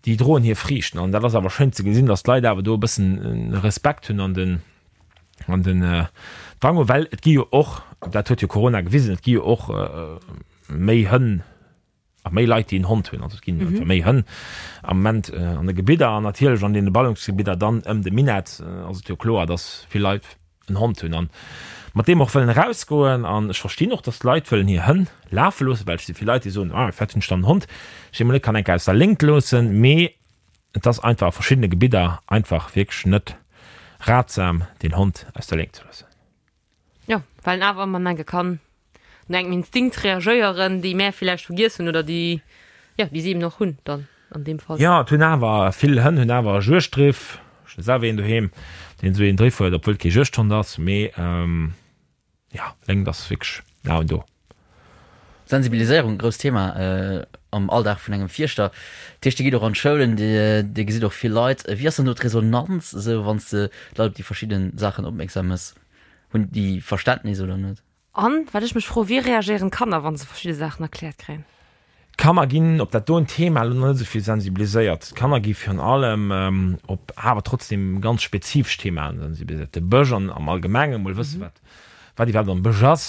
déi droen hir Friichten an dat ass awer schéin ze gesinn, datt d'Leit awer do e bëssen Respekt hunn an den an den Drang hunn, well et gi jo och, dat huet jo Corona gewisen, et gi jo och méi Hënn a méi Leit, déi en Hond hunn, also et ginn einfach méi Hënn am Moment an de Gebidder an natierlech an deene Ballungsgebidder dann ëm de Minett ass et jo kloer, datt vill Leit en Hond hunn an mat deem och wëllen erausgoen an ech verstinn och, dass d'Leit wëllen hir Hënn lafe loossen, well et si vill Leit, déi soen, ah firwat hunn ech dann en Hond, ech dee mol net kann eng Kéier aus der Léngt loossen, mee et ass einfach a verschiddene Gebidder einfach wierklech net ratsam, den Hond aus der Léngt ze loossen. Jo, well en awer ëmmer enke kann no engem Instinkt reagéieren, déi mär villäicht vergiess hunn oder déi, jo, déi si eben och hunn dann an deem Fall. Jo, et hunn awer vill Hënn hunn awer e Juegdriff. Ech hunn selwer een doheem, deen esou een Driff huet, obwuel et kee Juegdhond ass. Mee jo, Léngt ass wierklech den A und O. Sensibiliséierung, grousst Thema am Alldag vun engem Fierschter. Dat heescht, Dir gitt och an d'Schoulen, Dir gesitt och vill Leit. Wéi ass dann do d'Resonanz esou, wann s de d'Leit op déi verschidde Saachen opmierksam méchs? Hunn déi Verständnis oder net? An wat ech mech froen, wéi reagéieren d'Kanner, wa se verschidde Saachen erkläert kréien? D'Kanner ginn op dat doen Thema elo net esou vill sensibiliséiert. D'Kanner gi virun allem op awer trotzdem ganz spezifesch Themaen sensibiliséiert. De Bësch an am Allgemengen, mol wësse wat wat iwwerhaapt am Bësch ass,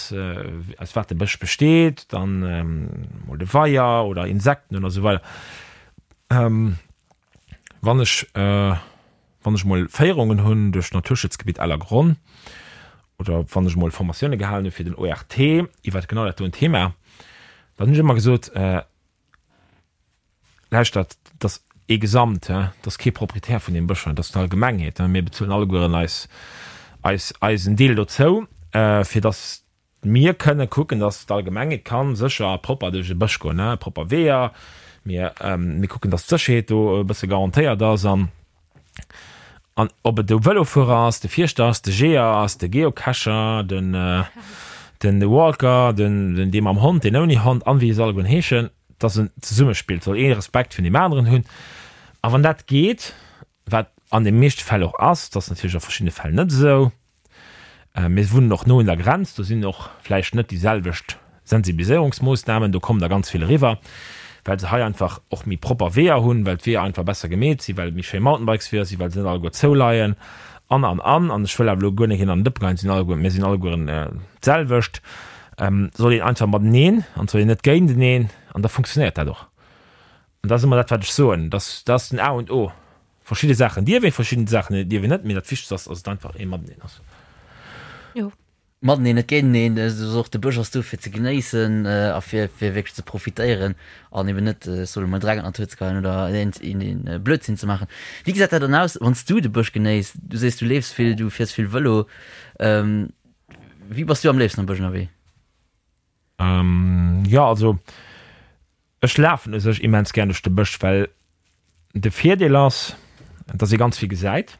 aus wat de Bësch besteet, dann mol de Weier oder Insekten oder esou weider. Wann ech Wann ech mol Féierungen hunn duerch d'Naturschutzgebitt Ellergronn oder wann ech mol Formatioune gehalen hu fir den ORT iwwert genau dat doen Thema, dann hunn ech ëmmer gesot, Lauschtert, dat ass ee Gesamt, dat ass kee Proprietär vun deem Bësch, dat ass d'Allgemengheet. Mir bezuelen allegueren eis, eis, eisen Deel dozou, fir datt Mir kënne kucken, dass d'Allgemengheet ka sécher a propper duerch e Bësch goen, propper Weeër. Mir, mir kucken, dass d'Sécherheet do e bësse garantéiert ass. An, an ob et de Vëlofuerer ass, de Fierschter ass, de Jeeër ass, de Geocacher, den, den Walker, den, den dee mam Hond, deen ouni Hond an wéi se allegueren heeschen, dass en Zesummespill, et soll ee Respekt vun deem aneren hunn. A wann dat geet, wat an de meeschte Fäll och ass, dat ass natierlech a verschiddene Fäll net esou, Mir wunnen och no un der Grenz, do sinn och vläicht net déi selwecht Sensibiliséierungsmoossnamen, do kommen der ganz vill eriwwer, well se hei einfach och méi propper Weeër hunn, well d'Weeër einfach besser gemeet sinn, well et méi schéi Mountainbikesweeër sinn, well se net alleguer zouleien an, an, an. An ech wëll awer elo guer net een an den Dëppe geheien, et sinn alleguer, mir sinn allegueren d'selwecht. Soll een einfach mateneen an et soll een net géinteneen an da funktionéiert dat och. An dat ass ëmmer dat, wat ech soen, dat ass den A und O. Verschidde Saachen dierf een, verschidden Saachen dierf een net, mee dat Wichtegst ass, dass et einfach ee Mateneen ass. Jo. Mateneen, net géinteneen. Et ass och, de Bësch ass do fir ze genéissen a fir fir wierklech ze profitéieren an eben net, ech soe mol, Dreck an d'Natur ze geheien oder een een Blödsinn ze maachen. Wéi gesäit dat dann aus, wann s du de Bësch genéiss? Du sees, du leefs vill, du fiers vill Vëlo. Wéi bass du am léifsten am Bësch ënnerwee? Jo, also Ech lafen u sech immens gär duerch de Bësch, well de Virdeel ass, dass ee ganz vill gesäit,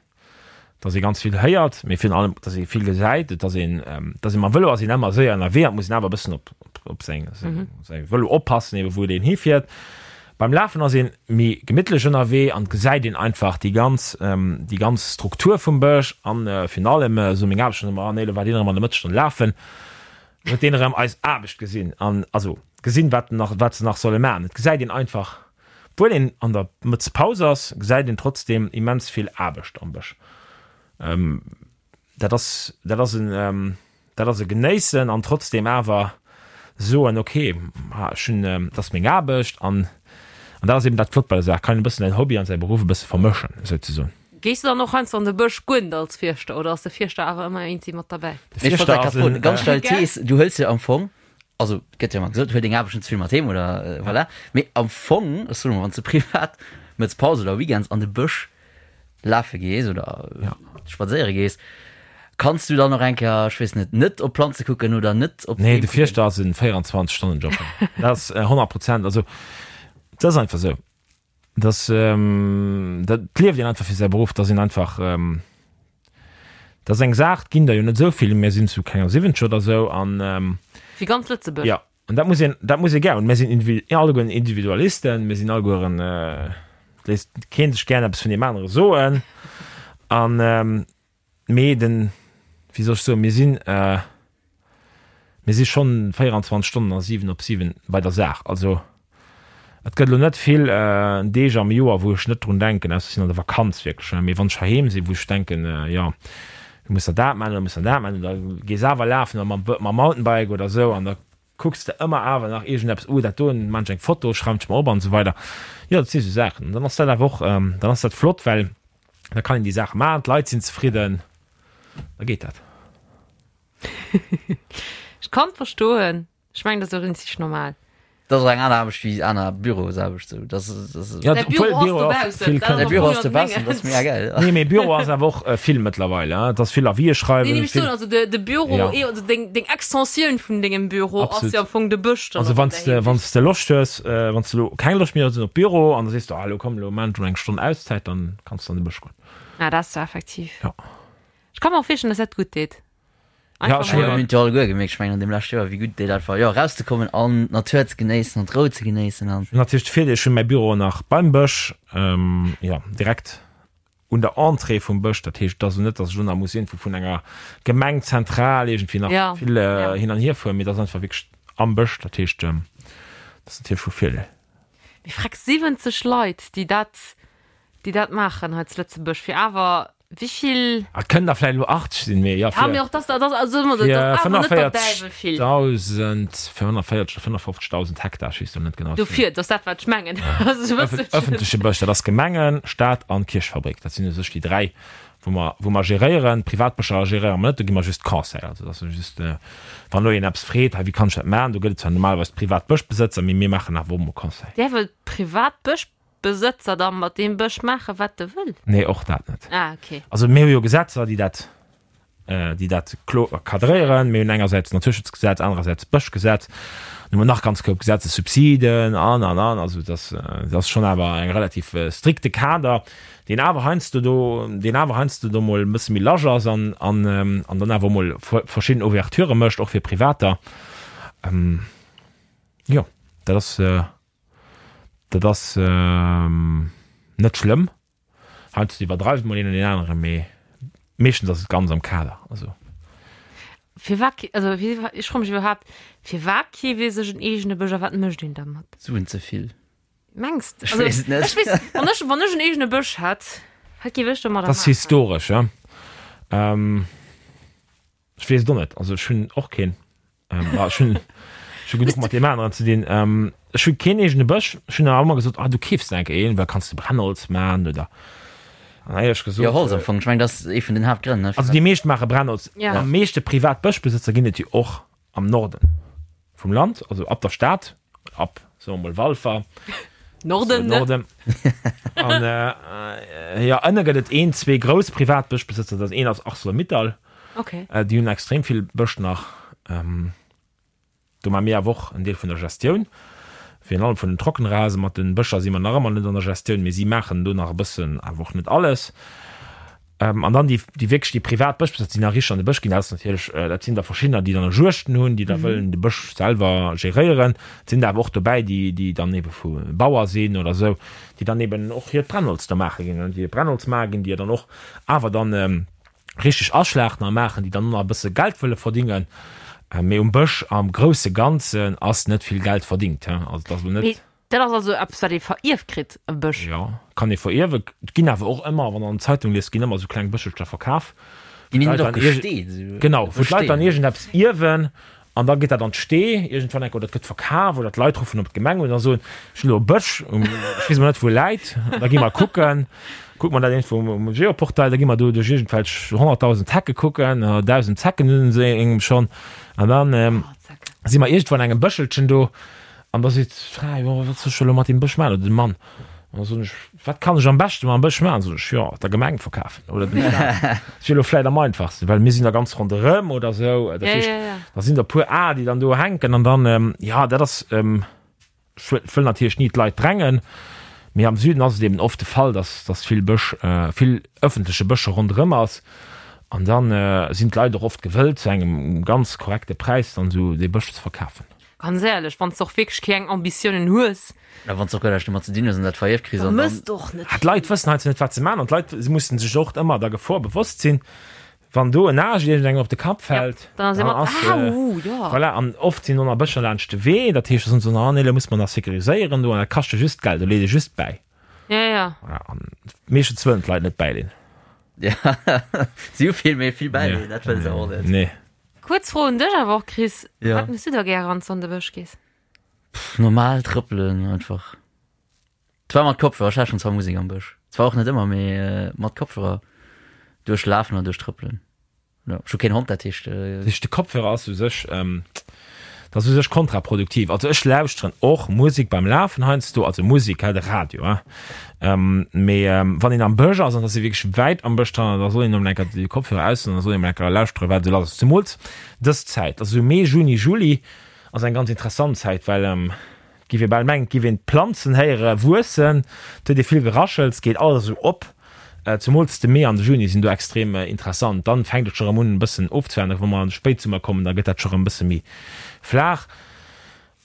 dass ee ganz vill héiert, mee virun allem, dass ee vill gesäit, et ass een, dass ee mam Vëlo ass een ëmmer séier ënnerwee an et muss een awer e bëssen op op säin säi Vëlo oppassen, ebe wou deen hifiert. Beim Lafen ass een méi gemittlech ënnerwee an gesäit een einfach déi ganz, déi ganz Struktur vum Bësch an virun allem, esou meng Aarbecht schon ëmmer, ah nee, elo war deen erëm an der Mëttesstonn lafen, huet deen erëm eis Aarbecht gesinn an also gesinn, wat nach, wat se nach solle maachen. Et gesäit een einfach, obwuel een an der Mëttespaus ass, gesäit een trotzdem immens vill Aarbecht am Bësch. Dat ass, dat ass en, dat ass e Genéissen an trotzdem awer soen, okay, ech hunn, dat ass meng Aarbecht an an dat ass eben dat Flott bei der Saach, kann een e bëssen säin Hobby an säi Beruff e bësse vermëschen souzesoen. Gees du dann och heiansdo an de Bësch goen als Fierschter oder ass de Fierschter awer ëmmer eenzi mat derbäi? De Ech wollt Fierschter ass en. Ganz steil Thees, du hëls jo am Fong, also et gëtt jo ëmmer gesot, huel deng Aarbecht net ze vill mat heem oder voilà, mee am Fong, ech soen emol, wann s de privat mëtts Paus oder Weekends an de Bësch lafe gees oder ja. spadséiere gees, kanns du dann noch eng Kéier, ech weess net, net op Planze kucken oder net op Nee, de Fierschter ass en 24 Stonnen Job. Dat ass 100 Prozent. Also dat ass einfach sou. Das, ähm, dat lieft een einfach fir säi Beruff, dat sinn einfach ähm, dat ass eng Saach, ginn der jo net esou vill, mir sinn zu kenger 70 oder sou an ähm, Fir ganz Lëtzebuerg. Ja. An dat muss een, dat muss ee gär hunn. Mir sinn allegueren Individualisten, mir sinn allegueren, et léisst kee sech gären eppes vun deem anere soen. An, mee den, wéi soll ech soen, mir sinn, mir si schonn 24 Stonnen a 7 op 7 bei der Saach. Also et gëtt elo net vill Deeg am Joer, wou ech net drun denken, ausser ech sinn an der Vakanz wierklech, mee wann ech heiheem sinn, wou ech denken, jo, du muss der dat maachen oder muss der dat maachen oder gees awer lafen oder mam mam Mountainbike oder esou an da kucks de ëmmer awer nach iergendeppes, oh dat doen, maan ech eng Foto, schreiwen ech mer op an esou weider. Jo, dat si sou Saachen. An dann ass dat awer och, dann ass dat flott, well da kann een déi Saache maachen, d'Leit sinn zefridden, da geet dat. Ech kann verstoen. Ech mengen, dat ass och rinzeg normal. Dat ass och eng aner Aarbecht wéi aner Bürosaarbecht. Sou. Dat ass, dat ass, Ja, Däi obwuel Büro ass Büro och dobaussen, vill dat ass kënnt. Däi Büro ass am Fong dobaussen, dat ass mega gäil. Nee, mee Büro ass awer och vill mëttlerweil, hein. Et ass vill Avisë Nee, schreiwen, nee, ech soen, vill. also de, de Büro, Ja. eh, also deng, deng Extensioun vun dengem Büro ass Absolut. jo am Fong de Bësch dann Also och wann an s där de, wann Hinsicht. s de Loscht hues, wann s de elo keng Loscht méi hues op Büro an da sees de, ah elo komm, elo maan ech mol eng Stonn Auszäit, dann kanns de an de Bësch goen. Ah, dat ass jo effektiv. Ja. Ech ka mer och virstellen, dass dat gutt deet. Ja, Einfach ech mol. Mir hunn et jo alleguer gemierkt, ech mengen an deem leschte Joer, wéi gutt et deet einfach, jo, erauszekommen an d'Natur ze genéissen an d'Rou ze genéissen an. Hunn natierlech de Virdeel, ech hunn mäi Büro nach beim Bësch, jo, direkt un der Entrée vum Bësch. Dat heescht, et ass elo net, datt ech elo nach muss iergendwou vun enger Gemeng zentral iergendwéi nach Ja, vill ja. hin an hier fueren, mee et ass einfach wierklech am Bësch. Dat heescht, dat ass natierlech vu Virdeel. Mee freck, 70 Leit, déi dat, déi dat maachen hei zu Lëtzebuerg, fir awer Wéivill? Et kënnen der vläicht elo 80 sinn, mee jo, Ja, mee fir och dass, dass, also dat fir ass awer net der Däiwel vill. 45.000, 45 oder 55.000 Hektar, ech weess elo net genau. Dofir, dat ass dat, wat ech mengen. Also, e bësselchen. Ëffentleche Bësch, dat ass Gemengen, Stad an Kierchfabrik. Dat sinn u sech déi dräi, wou mer, wou mer geréieren. Privatbëscher geréiere mer net, do gi mer just Conseil. Also dat ass just, wann elo een eppes freet, hei wéi kann ech dat maachen, do gëtt et zwar normalerweis d'Privatbëschbesëtzer, mee mir maachen awer och mol Conseil. Däerf e Privatbësch Besëtzer da mat deem Bësch maachen, wat e wëll? Nee, och dat net. Ah, okay. Also mir hu jo Gesetzer, déi dat, déi dat kloer cadréieren. Mir hunn engersäits d'Naturschutzgesetz, anerersäits d'Bëschgesetz. Dann hu mer nach ganz koup Gesetzer, Subsiden an, an, an. Also dat ass, dat ass schonn awer eng relativ strikte Kader, deen awer heiansdo do, deen awer heiansdo do mol e bësse méi large ass an, an, an dann awer och mol verschidden Ouverturë mécht, och fir Privater. Jo, dat ass. Dat ass net schlëmm. Heiansdo iwwerdreift mol een an deen aneren, mee meeschtens ass et ganz am Kader. Also. Firwat, also ech froe mech iwwerhaapt, firwat keeft ee sech en eegene Bësch a wat mécht een dermat? Suen ze vill. Mengs de? Ech weess et net. Ech weess, wann ech, wann ech en eegene Bësch hätt, wat géif ech domadder Dat ass maachen? historesch, ja. Ech weess et och net. Also ech hunn och keen. Ähm, ah, ech hunn ech hu genuch mat deem aneren ze dinn. Ähm, ech hu keen eegene Bësch. Ech hunn awer ëmmer gesot, ah, du keefs der enke een, well kanns de Brennholz man oder. An hei ech gesot. Jo, Holz am Fong. Ech mengen, dat ass ee vun den Haaptgrënn, ne? Also déi meescht maache Brennholz. Ja. Am meeschte privat Bëschbesëtzer ginn et jo och am Norden vum Land, also ab der Stad, ab, soe mer mol, Walfer. Norden, ne? Norden. An äh, jo, ënne gëtt et een, zwee grouss privat Bëschbesëtzer. Dat een ass Arcelor-Mittal. Okay. Äh, déi hunn extrem vill Bësch nach. Ähm, do maache mir awer och en Deel vun der Gestioun. Virun allem vun den Trockenrasen. Mat den Bëscher si mer nach ëmmer net an der Gestioun, mee si maachen do nach e bëssen, awer och net alles. An dann déi, déi wierklech déi privat Bëschbesëtzer, déi nach richteg an de Bësch ginn, dat ass natierlech, dat sinn der verschiddener, déi dann och Juegten hunn, déi da wëllen de Bësch selwer geréieren. Et sinn der awer och dobäi, déi, déi dann ebe vu Bauer sinn oder esou, déi dann eben och hiert Brennholz da maache ginn, déi hiert Brennholz maache ginn, déi dann och awer dann richteg aschlachten a maachen, déi dann och nach e bësse Geld wëlle verdingen. Mee um Bësch am grousse Ganzen ass net vill Geld verdingt, also et ass elo net. Dat ass also eppes, wat ee verierft kritt, e Bësch? Jo, kann ee verierwen. Et ginn awer och ëmmer, wann Der an der Zeitung liest, ginn ëmmer esou kleng Bëschelcher verkaf. Ginn déi net och gesteet? Esou Genau, wou d'Leit dann iergendeppes ierwen an da geet dat an d'Stee iergendwann enk oder et gëtt verkaf oder d'Leit ruffen op d'Gemeng un a soen, ech hunn elo e Bësch, ech weess emol net, wou e läit. An da gi mer kucken, kucke mer dat iergendwou um Geoportail, da gi mer do duerch iergendwelch 100.000 Hecke kucken, 1.000 Zecken hunn se engem schonn an dann si mer iergendwou an engem Bëschelchen do. An da seet d'Fra, jo, wat soll ech elo mat deem Bësch maachen? Oder de Mann. An da soen ech, wat kann ech am beschte mam Bësch maachen? Soen ech, jo, der Gemeng verkafen oder dem Staat. Dat wier elo vläicht am einfachsten, well mir sinn da ganz ronderëm oder esou. Dat heescht, da sinn der e puer Aer, déi dann do hänken an dann, jo, dat ass, ech wëll natierlech ni d'Leit drängen, mee am Süden ass et eben oft de Fall, dass, dass vill Bësch, vill ëffentleche Bësch ronderëm ass. An dann sinn d'Leit och oft gewëllt, zu engem ganz korrekte Präis dann esou dee Bësch ze verkafen. Ganz éierlech, wann s de och wierklech keng Ambitiounen hues. A wann s de och guer näischt domat ze dinn hues an dat verierft kriss Da an dann. mëss de och net Ah, d'Leit vill. wëssen heiansdo net, wat se maachen an d'Leit mussen sech och ëmmer der Gefor bewosst sinn, wann do en Aascht iergendengem op de Kapp Ja, fält, dann ass dann ee mat, ass, Au, jo. voilà. An oft sinn och nach Bëscher laanscht de Wee, dat heescht, da soen se, ah nee, lo muss mer nach sécuriséieren do an dat kascht jo just Geld, do leet ee just bäi. Ja, ja. Voilà, an meeschtens wëllen d'Leit net bäileen. Ja, si hu vill méi vill bäileen, dat wëlle se och net. Nee. Kuerz Fro un dech awer och, Chris, Ja. Wat mëss du da gäre wann s du an de Bësch gees? Pff, normal trëppelen einfach. Zwar mat Kopfhörer, ech lauschteren zwar Musek am Bësch. Zwar och net ëmmer, mee mat Kopfhörer duerch lafen an duerch trëppelen. Jo, ech hu keen Hond, dat heescht. Dat heescht, de Kopfhörer ass u sech, dat ass u sech kontraproduktiv. Also ech lauschteren och Musek beim Lafen heiansdo, also Musek, hä, de Radio, hä. Mee wann een am Bësch ass, an et ass ee wierklech wäit am Bësch dran, da soll een emol eng Kéier déi Kopfhörer ausdoen, da soll een emol eng Kéier lauschteren, wat esou lass ass. Zemools dës Zäit, also esou Mee, Juni, Juli ass eng ganz interessant Zäit, well et giff ee bal mengen, et giff een d'Planzen héiere wuessen, et huet ee vill Geraschels, geet alles esou op. Zemools de Mee an de Juni sinn do extrem interessant. Dann fänkt et scho rëm un e bëssen ofzeflachen, wa mer an de Spéitsummer kommen, da gëtt dat scho rëm e bësse méi flaach.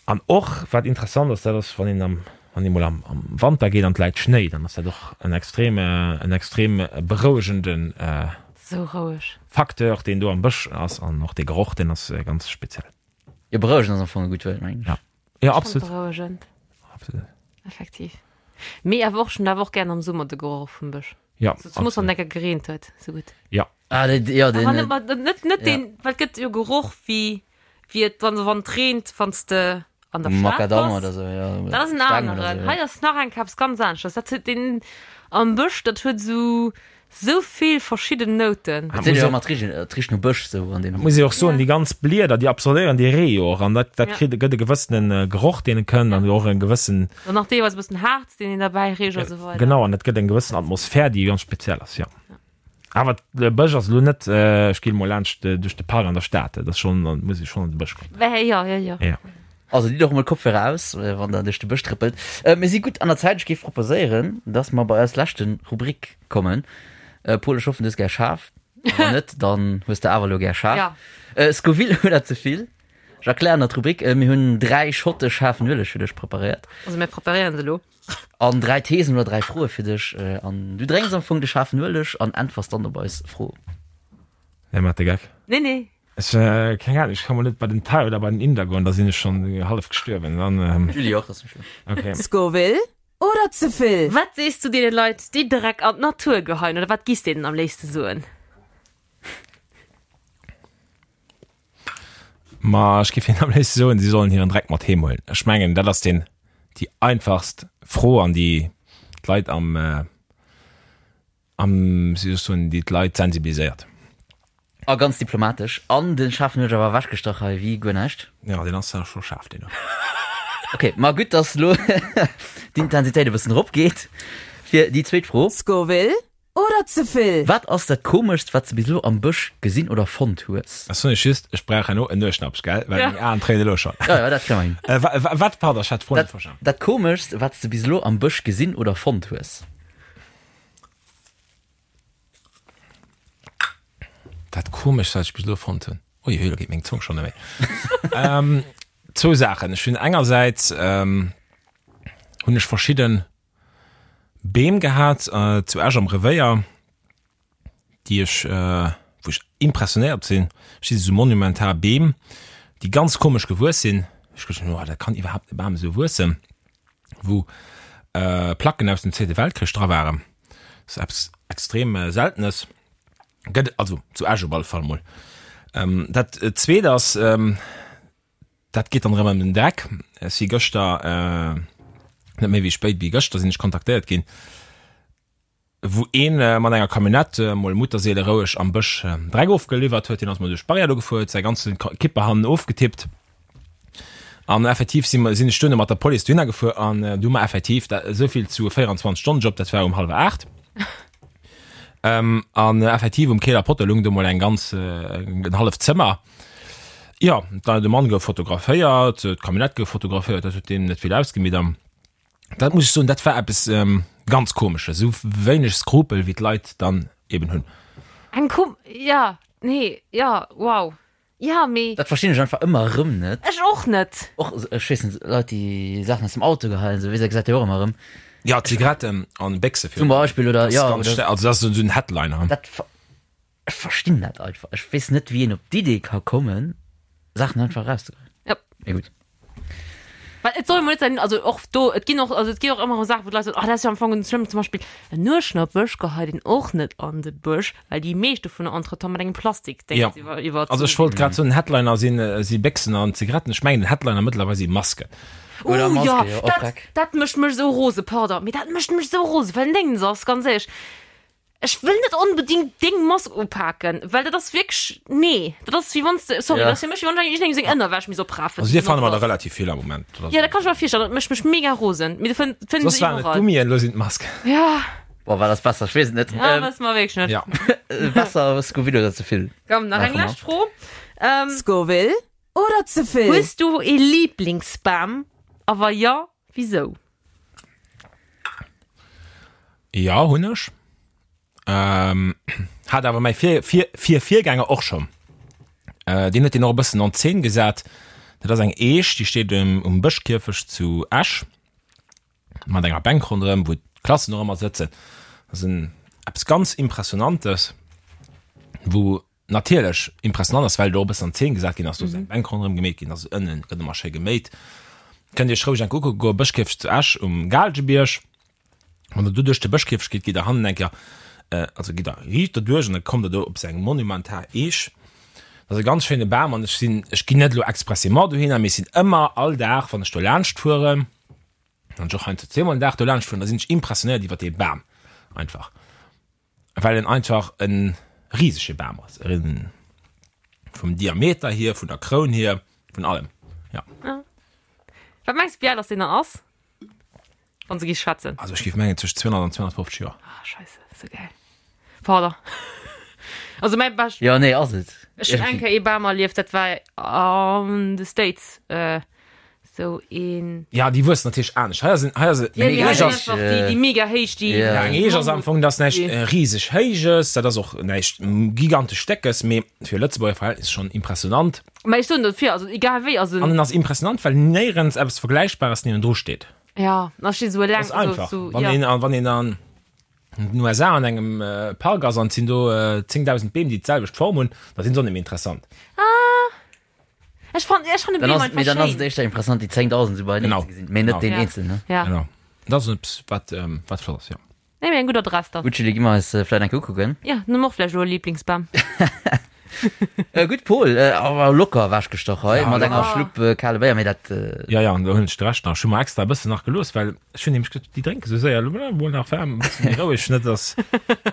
An och wat interessant ass, dat ass wann een am, wann ee mol am, am Wanter geet an et läit Schnéi, dann ass dat och en extrem, en extrem berouegende Sou roueg. Facteur, deen do am Bësch ass. An och dee Geroch, deen ass ganz speziell. Jo, berouegend ass am Fong e gutt Wuert, mengen ech. Ja, ja Schon absolut. berouegend. Absolut. Effektiv. Mee awer och, ech hunn awer och gären am Summer de Geroch vum Bësch. Ja, So, zemools wann absolut. enker gereent huet, sou gutt. Ja. Ah, dee, jo, deen. Awer net, mat- net, net ja. deen, well et gëtt jo Geroch wéi, wéi et, wann, wann et reent, wann s de an der Stad Makadamm bass. oder sou, jo. Dat ass en Steng oder aneren. sou, jo. Hei ass nach eng Kéier eppes ganz aneschters. Dat huet deen am Bësch, dat huet sou, sou vill verschidden Nouten. Et seet jo ëmmer, et richt, et richt no Bësch sou an deem. Muss ee och soen, Ja. déi ganz Blieder, déi absorbéieren dee Ree jo och an dat, dat Ja. kritt, gëtt e gewëssene Geroch, deen e kënnt an och en gewëssen, An nach deelweis e bëssen Harz, deen een derbäi richt a sou weider. genau, an dat gëtt eng gewëssen Atmosphär, déi ganz speziell ass, jo. Awer de Bësch ass elo net, ech ginn emol laanscht duerch de Park an der Stad, dat ass schonn, da muss ee schonn an de Bësch goen. Wä, jo, jo, jo. Ja. Also ditt och emol Kopfhörer aus, wann der duerch de Bësch trëppelt. Mir si gutt an der Zäit. Ech géif proposéieren, dass mer bei eis leschte Rubrik kommen. Paul, ech hoffen, du hues gär schaarf. Wann net, dann hues de awer elo gär schaarf. Ja. Scoville oder ze vill? Ech erklären der d'Rubrik. Mir hunn 3 Schotte schaarfen Ueleg fir dech preparéiert. Also mir preparéieren se elo. An 3 Thesen oder 3 Froe fir dech. An du drénks am Fong de schaarfen Ueleg an äntwers dann op eis Fro. Nee, mat de Geck. Nee, nee. Ech, keng Ahnung, ech ka mol net bei den Thai oder bei den Inder goen, da sinn ech schonn hallef gestuerwen. Dann, Julie och, ass net schlëmm. okay. Scoville oder ze vill? Wat sees du deene Leit, déi Dreck an d'Natur geheien, oder wat giss deenen am léifste soen? Ma ech géif hinnen am léifste soen, si sollen hiren Dreck mat heem huelen. Ech mengen, dat ass deen, déi einfachst Fro an déi d'Leit am, am, wéi soll ech soen, déi d'Leit sensibiliséiert. A ganz diplomatesch. An den Schaarfen huet awer ewechgestach hei wéi guer näischt. Jo, deen ass scho schaarf, deen do. Ok, ma gutt, dass elo d'Intensitéit e bëssen eropgeet fir déi zweet Fro. Scoville Oder ze vill? Wat ass dat komeschst wat s de bis elo am Bësch gesinn oder fonnt hues? Ech soen iech just, ech brauch herno en Nueschnappsch, gell, well meng Aen tréinen elo schonn. Jo, jo, dat kréie mer hin. Wat, pardon, ech hat d'Fro net verstanen. Dat komeschst wat s de bis elo am Bësch gesinn oder fonnt hues? Komeschst, wat ech bis elo fonnt hunn? Ui, ui, lo geet meng Zong schonn net méi. Zwou Saachen. Ech hunn engersäits hunn ech verschidde Beem gehat zu Esch am Revéier, déi ech, wou ech impressionéiert sinn. Ech si sou monumental Beem, déi ganz komesch gewuess sinn. Ech geduecht hunn, oh, dat kann iwwerhaapt e Bam esou wuessen, wou Placken aus dem Zweete Weltkrich dra waren. Dat ass eppes extrem Seltenes. Gëtt also zu Esch op alle Fall mol. Dat Zweet ass, dat geet dann erëm ëm den Dreck. Ech si gëschter, net méi wéi spéit wéi gëschter sinn ech kontaktéiert ginn, wou een mat enger Camionnette mol mutterseele roueg am Bësch Dreck ofgeliwwert huet. Deen ass mol duerch d'Barrière do gefuer, huet säi ganze Kipper hannen ofgetippt. An effektiv si mer, sinn ech duerno mat der Police dohinner gefuer an du hu mer effektiv, dat esou vill zu 24 Stonnen Job, dat war um hallwer 8. Ähm, an effektiv um Keeler Potter lung do mol eng ganz, en halleft Zëmmer. Jo, da de Mann gouf fotograféiert, d'Camionnette gouf fotograféiert, dat huet deem net vill ausgemeet an dat muss ech soen, dat war eppes ganz Komesches, esou wéineg Skrupel wéi d'Leit dann eben hunn. Eng kom, ja, nee, ja, wow. Ja, mee. Dat verstinn ech einfach ëmmer erëm net. Ech och net. Och, ech weess net, Leit, déi Saachen aus dem Auto geheien, esou, wéi se gesäit jo och ëmmer erëm. Ja, Zigaretten an Béchse Zum Beispill, oder, ja, oder. Also dat ass esou en Headliner. Dat, ech verstinn dat einfach. Ech weess net, wéi een op d'Idee ka kommen, Saachen einfach erauszegeheien. Ja. Mee gutt. Well et soll emol net sein, also och do, et ginn och, also et ginn och ëmmer erëm Saachen, wou d'Leit soen, oh dat ass jo am Fong net schlëmm, zum Beispill en Nueschnappech geheit een och net an de Bësch, well déi meescht dovunner entretemps mat engem Plastikdéngs Ja. iwwer, iwwer. Also ech wollt grad soen, den Headliner sinn, si Béchsen an Zigaretten, ech mengen den Headliner mëttlerweil si Masken. Oder Uh, Maske, ja, jo, och dat, Dreck. dat mécht mech esou rose, pardon, mee dat mécht mech esou rose, well den Déngens ass, ganz éierlech, Ech wëll net onbedingt deng Mask upaken, well dat ass wierklech, nee, dat ass wéi wann s de, sorry, Ja. dat ass fir mech wéi wann ech iergendengem seng Ënnerwäsch misst oprafen. Also dir fanne mer der relativ vill am Moment. Dat ass- Ja, dat kann ech mer virstellen, dat mécht mech mega rosen, mee du fënn, fënn Soss se waren et iwwerall. Gummien, elo sinn et Masken. Ja, Boah, war das besser? Ech weess et net. ja, Ähm, wësse mer wierklech net. Ja. besser Scoville oder ze vill? Komm, nach eng Maache mer. lescht Fro. Ähm, Scoville oder ze vill? hues du ee Liblingsbam a wa jo, wisou? Ja, hunn ech. Ähm, hat awer mäi Vir, Vir, Vir, Virgänger och schonn. Äh, deen huet deen och e bëssen an Zeen gesat. Dat ass eng Eech, déi steet um, um Bëschkierfecht zu Esch, mat enger Bänk ronderëm, wou d'Klassen och ëmmer sëtzen. Dat ass en, eppes ganz Impressionantes, wou natierlech impressionant ass, well do e bëssen an Zeen gesat ginn ass, do ass eng Bänk ronderëm gemeet ginn, also ënnen gëtt ëmmer schéi geméit. Kënnt Iech roueg eng kucke goen, Bëschkierfecht zu Esch um Gaalgebierg. Wann der do duerch de Bëschkierfecht gitt, gitt der hannen eng Kéier, also gitt der riicht derduerch an da kommt der do op esou eng monumental Eech. Dat ass e ganz schéine Bam an ech sinn, ech ginn net elo expressément dohinner, mee ech sinn ëmmer all Dag, wann ech do laanscht fueren, wann ech och heiansdo zweemol den Dag do laanscht fueren, da sinn ech impressionéiert iwwer dee Bam einfach. Well en einfach e risege Bam ass, vum Diameter hier, vun der Kroun hier, vun allem, ja. Wat mengs de, wéi al ass deen dann ass, wann se gi schwätzen? Also ech géif mengen tëscht 200 an 250 Joer. Ah, scheisse, sou gäil. Pardon. Also mäi bescht. Jo, nee, ass et. Ech hunn eng Kéier ee Bam erlieft, dat war an de States. Sou een. Ja, déi wuessen natierlech anescht. Hei ass en, hei ass en, Ja, eng déi Eech hei ass, einfach déi, déi mega héich, déi. Ja. ja, eng Eech ass am Fong, dat ass näischt riseg Héijes, dat ass och näischt gigantesch Déckes, mee fir Lëtzebuerger Verhältnisser schonn impressionant. Mä ech soen dofir, also egal wéi, also. An en ass impressionant, well néierens eppes Vergläichbares niewendru steet. Ja, da steet esou eleng, Dat ass einfach. esou, Wann ja. een, wann een an den USA an engem Park ass an et sinn do 10.000 Beem, déi d'selwecht Form hunn, da sinn se och net méi interessant. Ah. Ech fand, ech fand den Dann Beam ass, einfach mee dann ass et schéin. éischter interessant, déi 10.000 esou beieneen Genau. ze gesinn, mee net Genau. deen Ja. eenzelen. Ja. Genau. Dat ass eppes, wat, ähm, wat flott ass, jo. Nee, mee eng gutt Adress dann. Gutt, Julie, gi mer eis äh, vläit eng Kéier ukucken. Ja, dann hu mer och vläicht elo e Lieblingsbam. Äh, gutt, Paul, äh, awer locker ewechgestach hei, Ja, mat enger locker. Schlupp äh, kale Béier, mee dat, äh, Ja, ja, an do hunn ech de Rescht nach. Ech hu mer extra e bëssen nach gelooss, well ech hunn nämlech geduet, déi drénke sou séier. Elo mol nach waarm, e bësse méi roueg, net dass,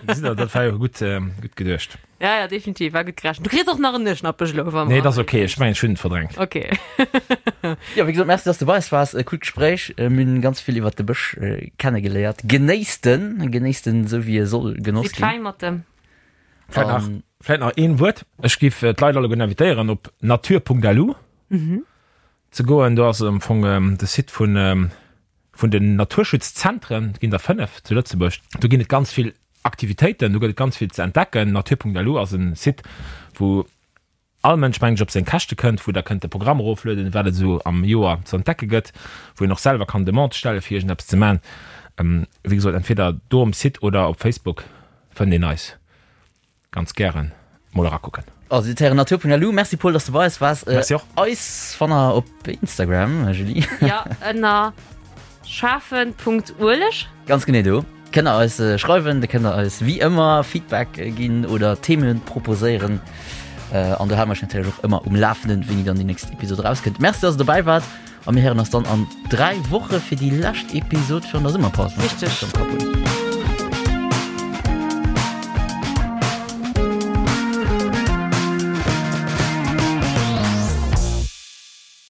gesitt Der, dat war jo gutt, ähm, gutt geduecht. Ja, ja, definitiv, war gutt gerechent. Du kriss och nach en Nueschnappech elo, wa Nee, dat ass okay, ech mengen, ech hunn et verdrängt. Okay. Jo, wéi gesot, merci, dass du bei eis waars. E coolt Gespréich. Mir hunn ganz vill iwwert de Bësch kennegeléiert. Genéisst en, genéisst en esou wéi e soll genoss Sidd ginn. fäin mat dem. Vläit nach, vläit nach een Wuert. Ech giff d'Leit alleguerten invitéieren, op nature.lu ze goen. Do ass am Fong de Site vun, vun den Naturschutzzentren. Et ginn der 5 zu Lëtzebuerg. Do ginn et ganz vill. Aktivitéiten, do gëtt et ganz vill ze entdecken. Natur.lu ass en Site, wou all Mënsch, mengen ech, op seng Käschte kënnt, wou der kënnt de Programm eroflueden, wat et esou am Joer ze entdecke gëtt, wou een och selwer kann Demande stelle fir iergendeppes ze man. Wéi gesot, entweder do um Site oder op Facebook fënnt een eis. Ganz gären mol erakucken. Also dir héieren natur.lu. Merci Paul, dass du bei eis waars. Merci och. Eis fannt der op Instagram, Julie. Ja, ënner schaarfen.ueleg. Ganz genee do kënnt der eis schreiwen, do kënnt der eis wéi ëmmer Feedback ginn oder Themen proposéieren. An do hale mer iech natierlech och ëmmer um Lafenden, wéini dann déi nächst Episod erauskënnt. Merci, dass der dobäi waart a mir héieren eis dann an 3 Woche fir déi lescht Episod virun der Summerpaus. Richteg.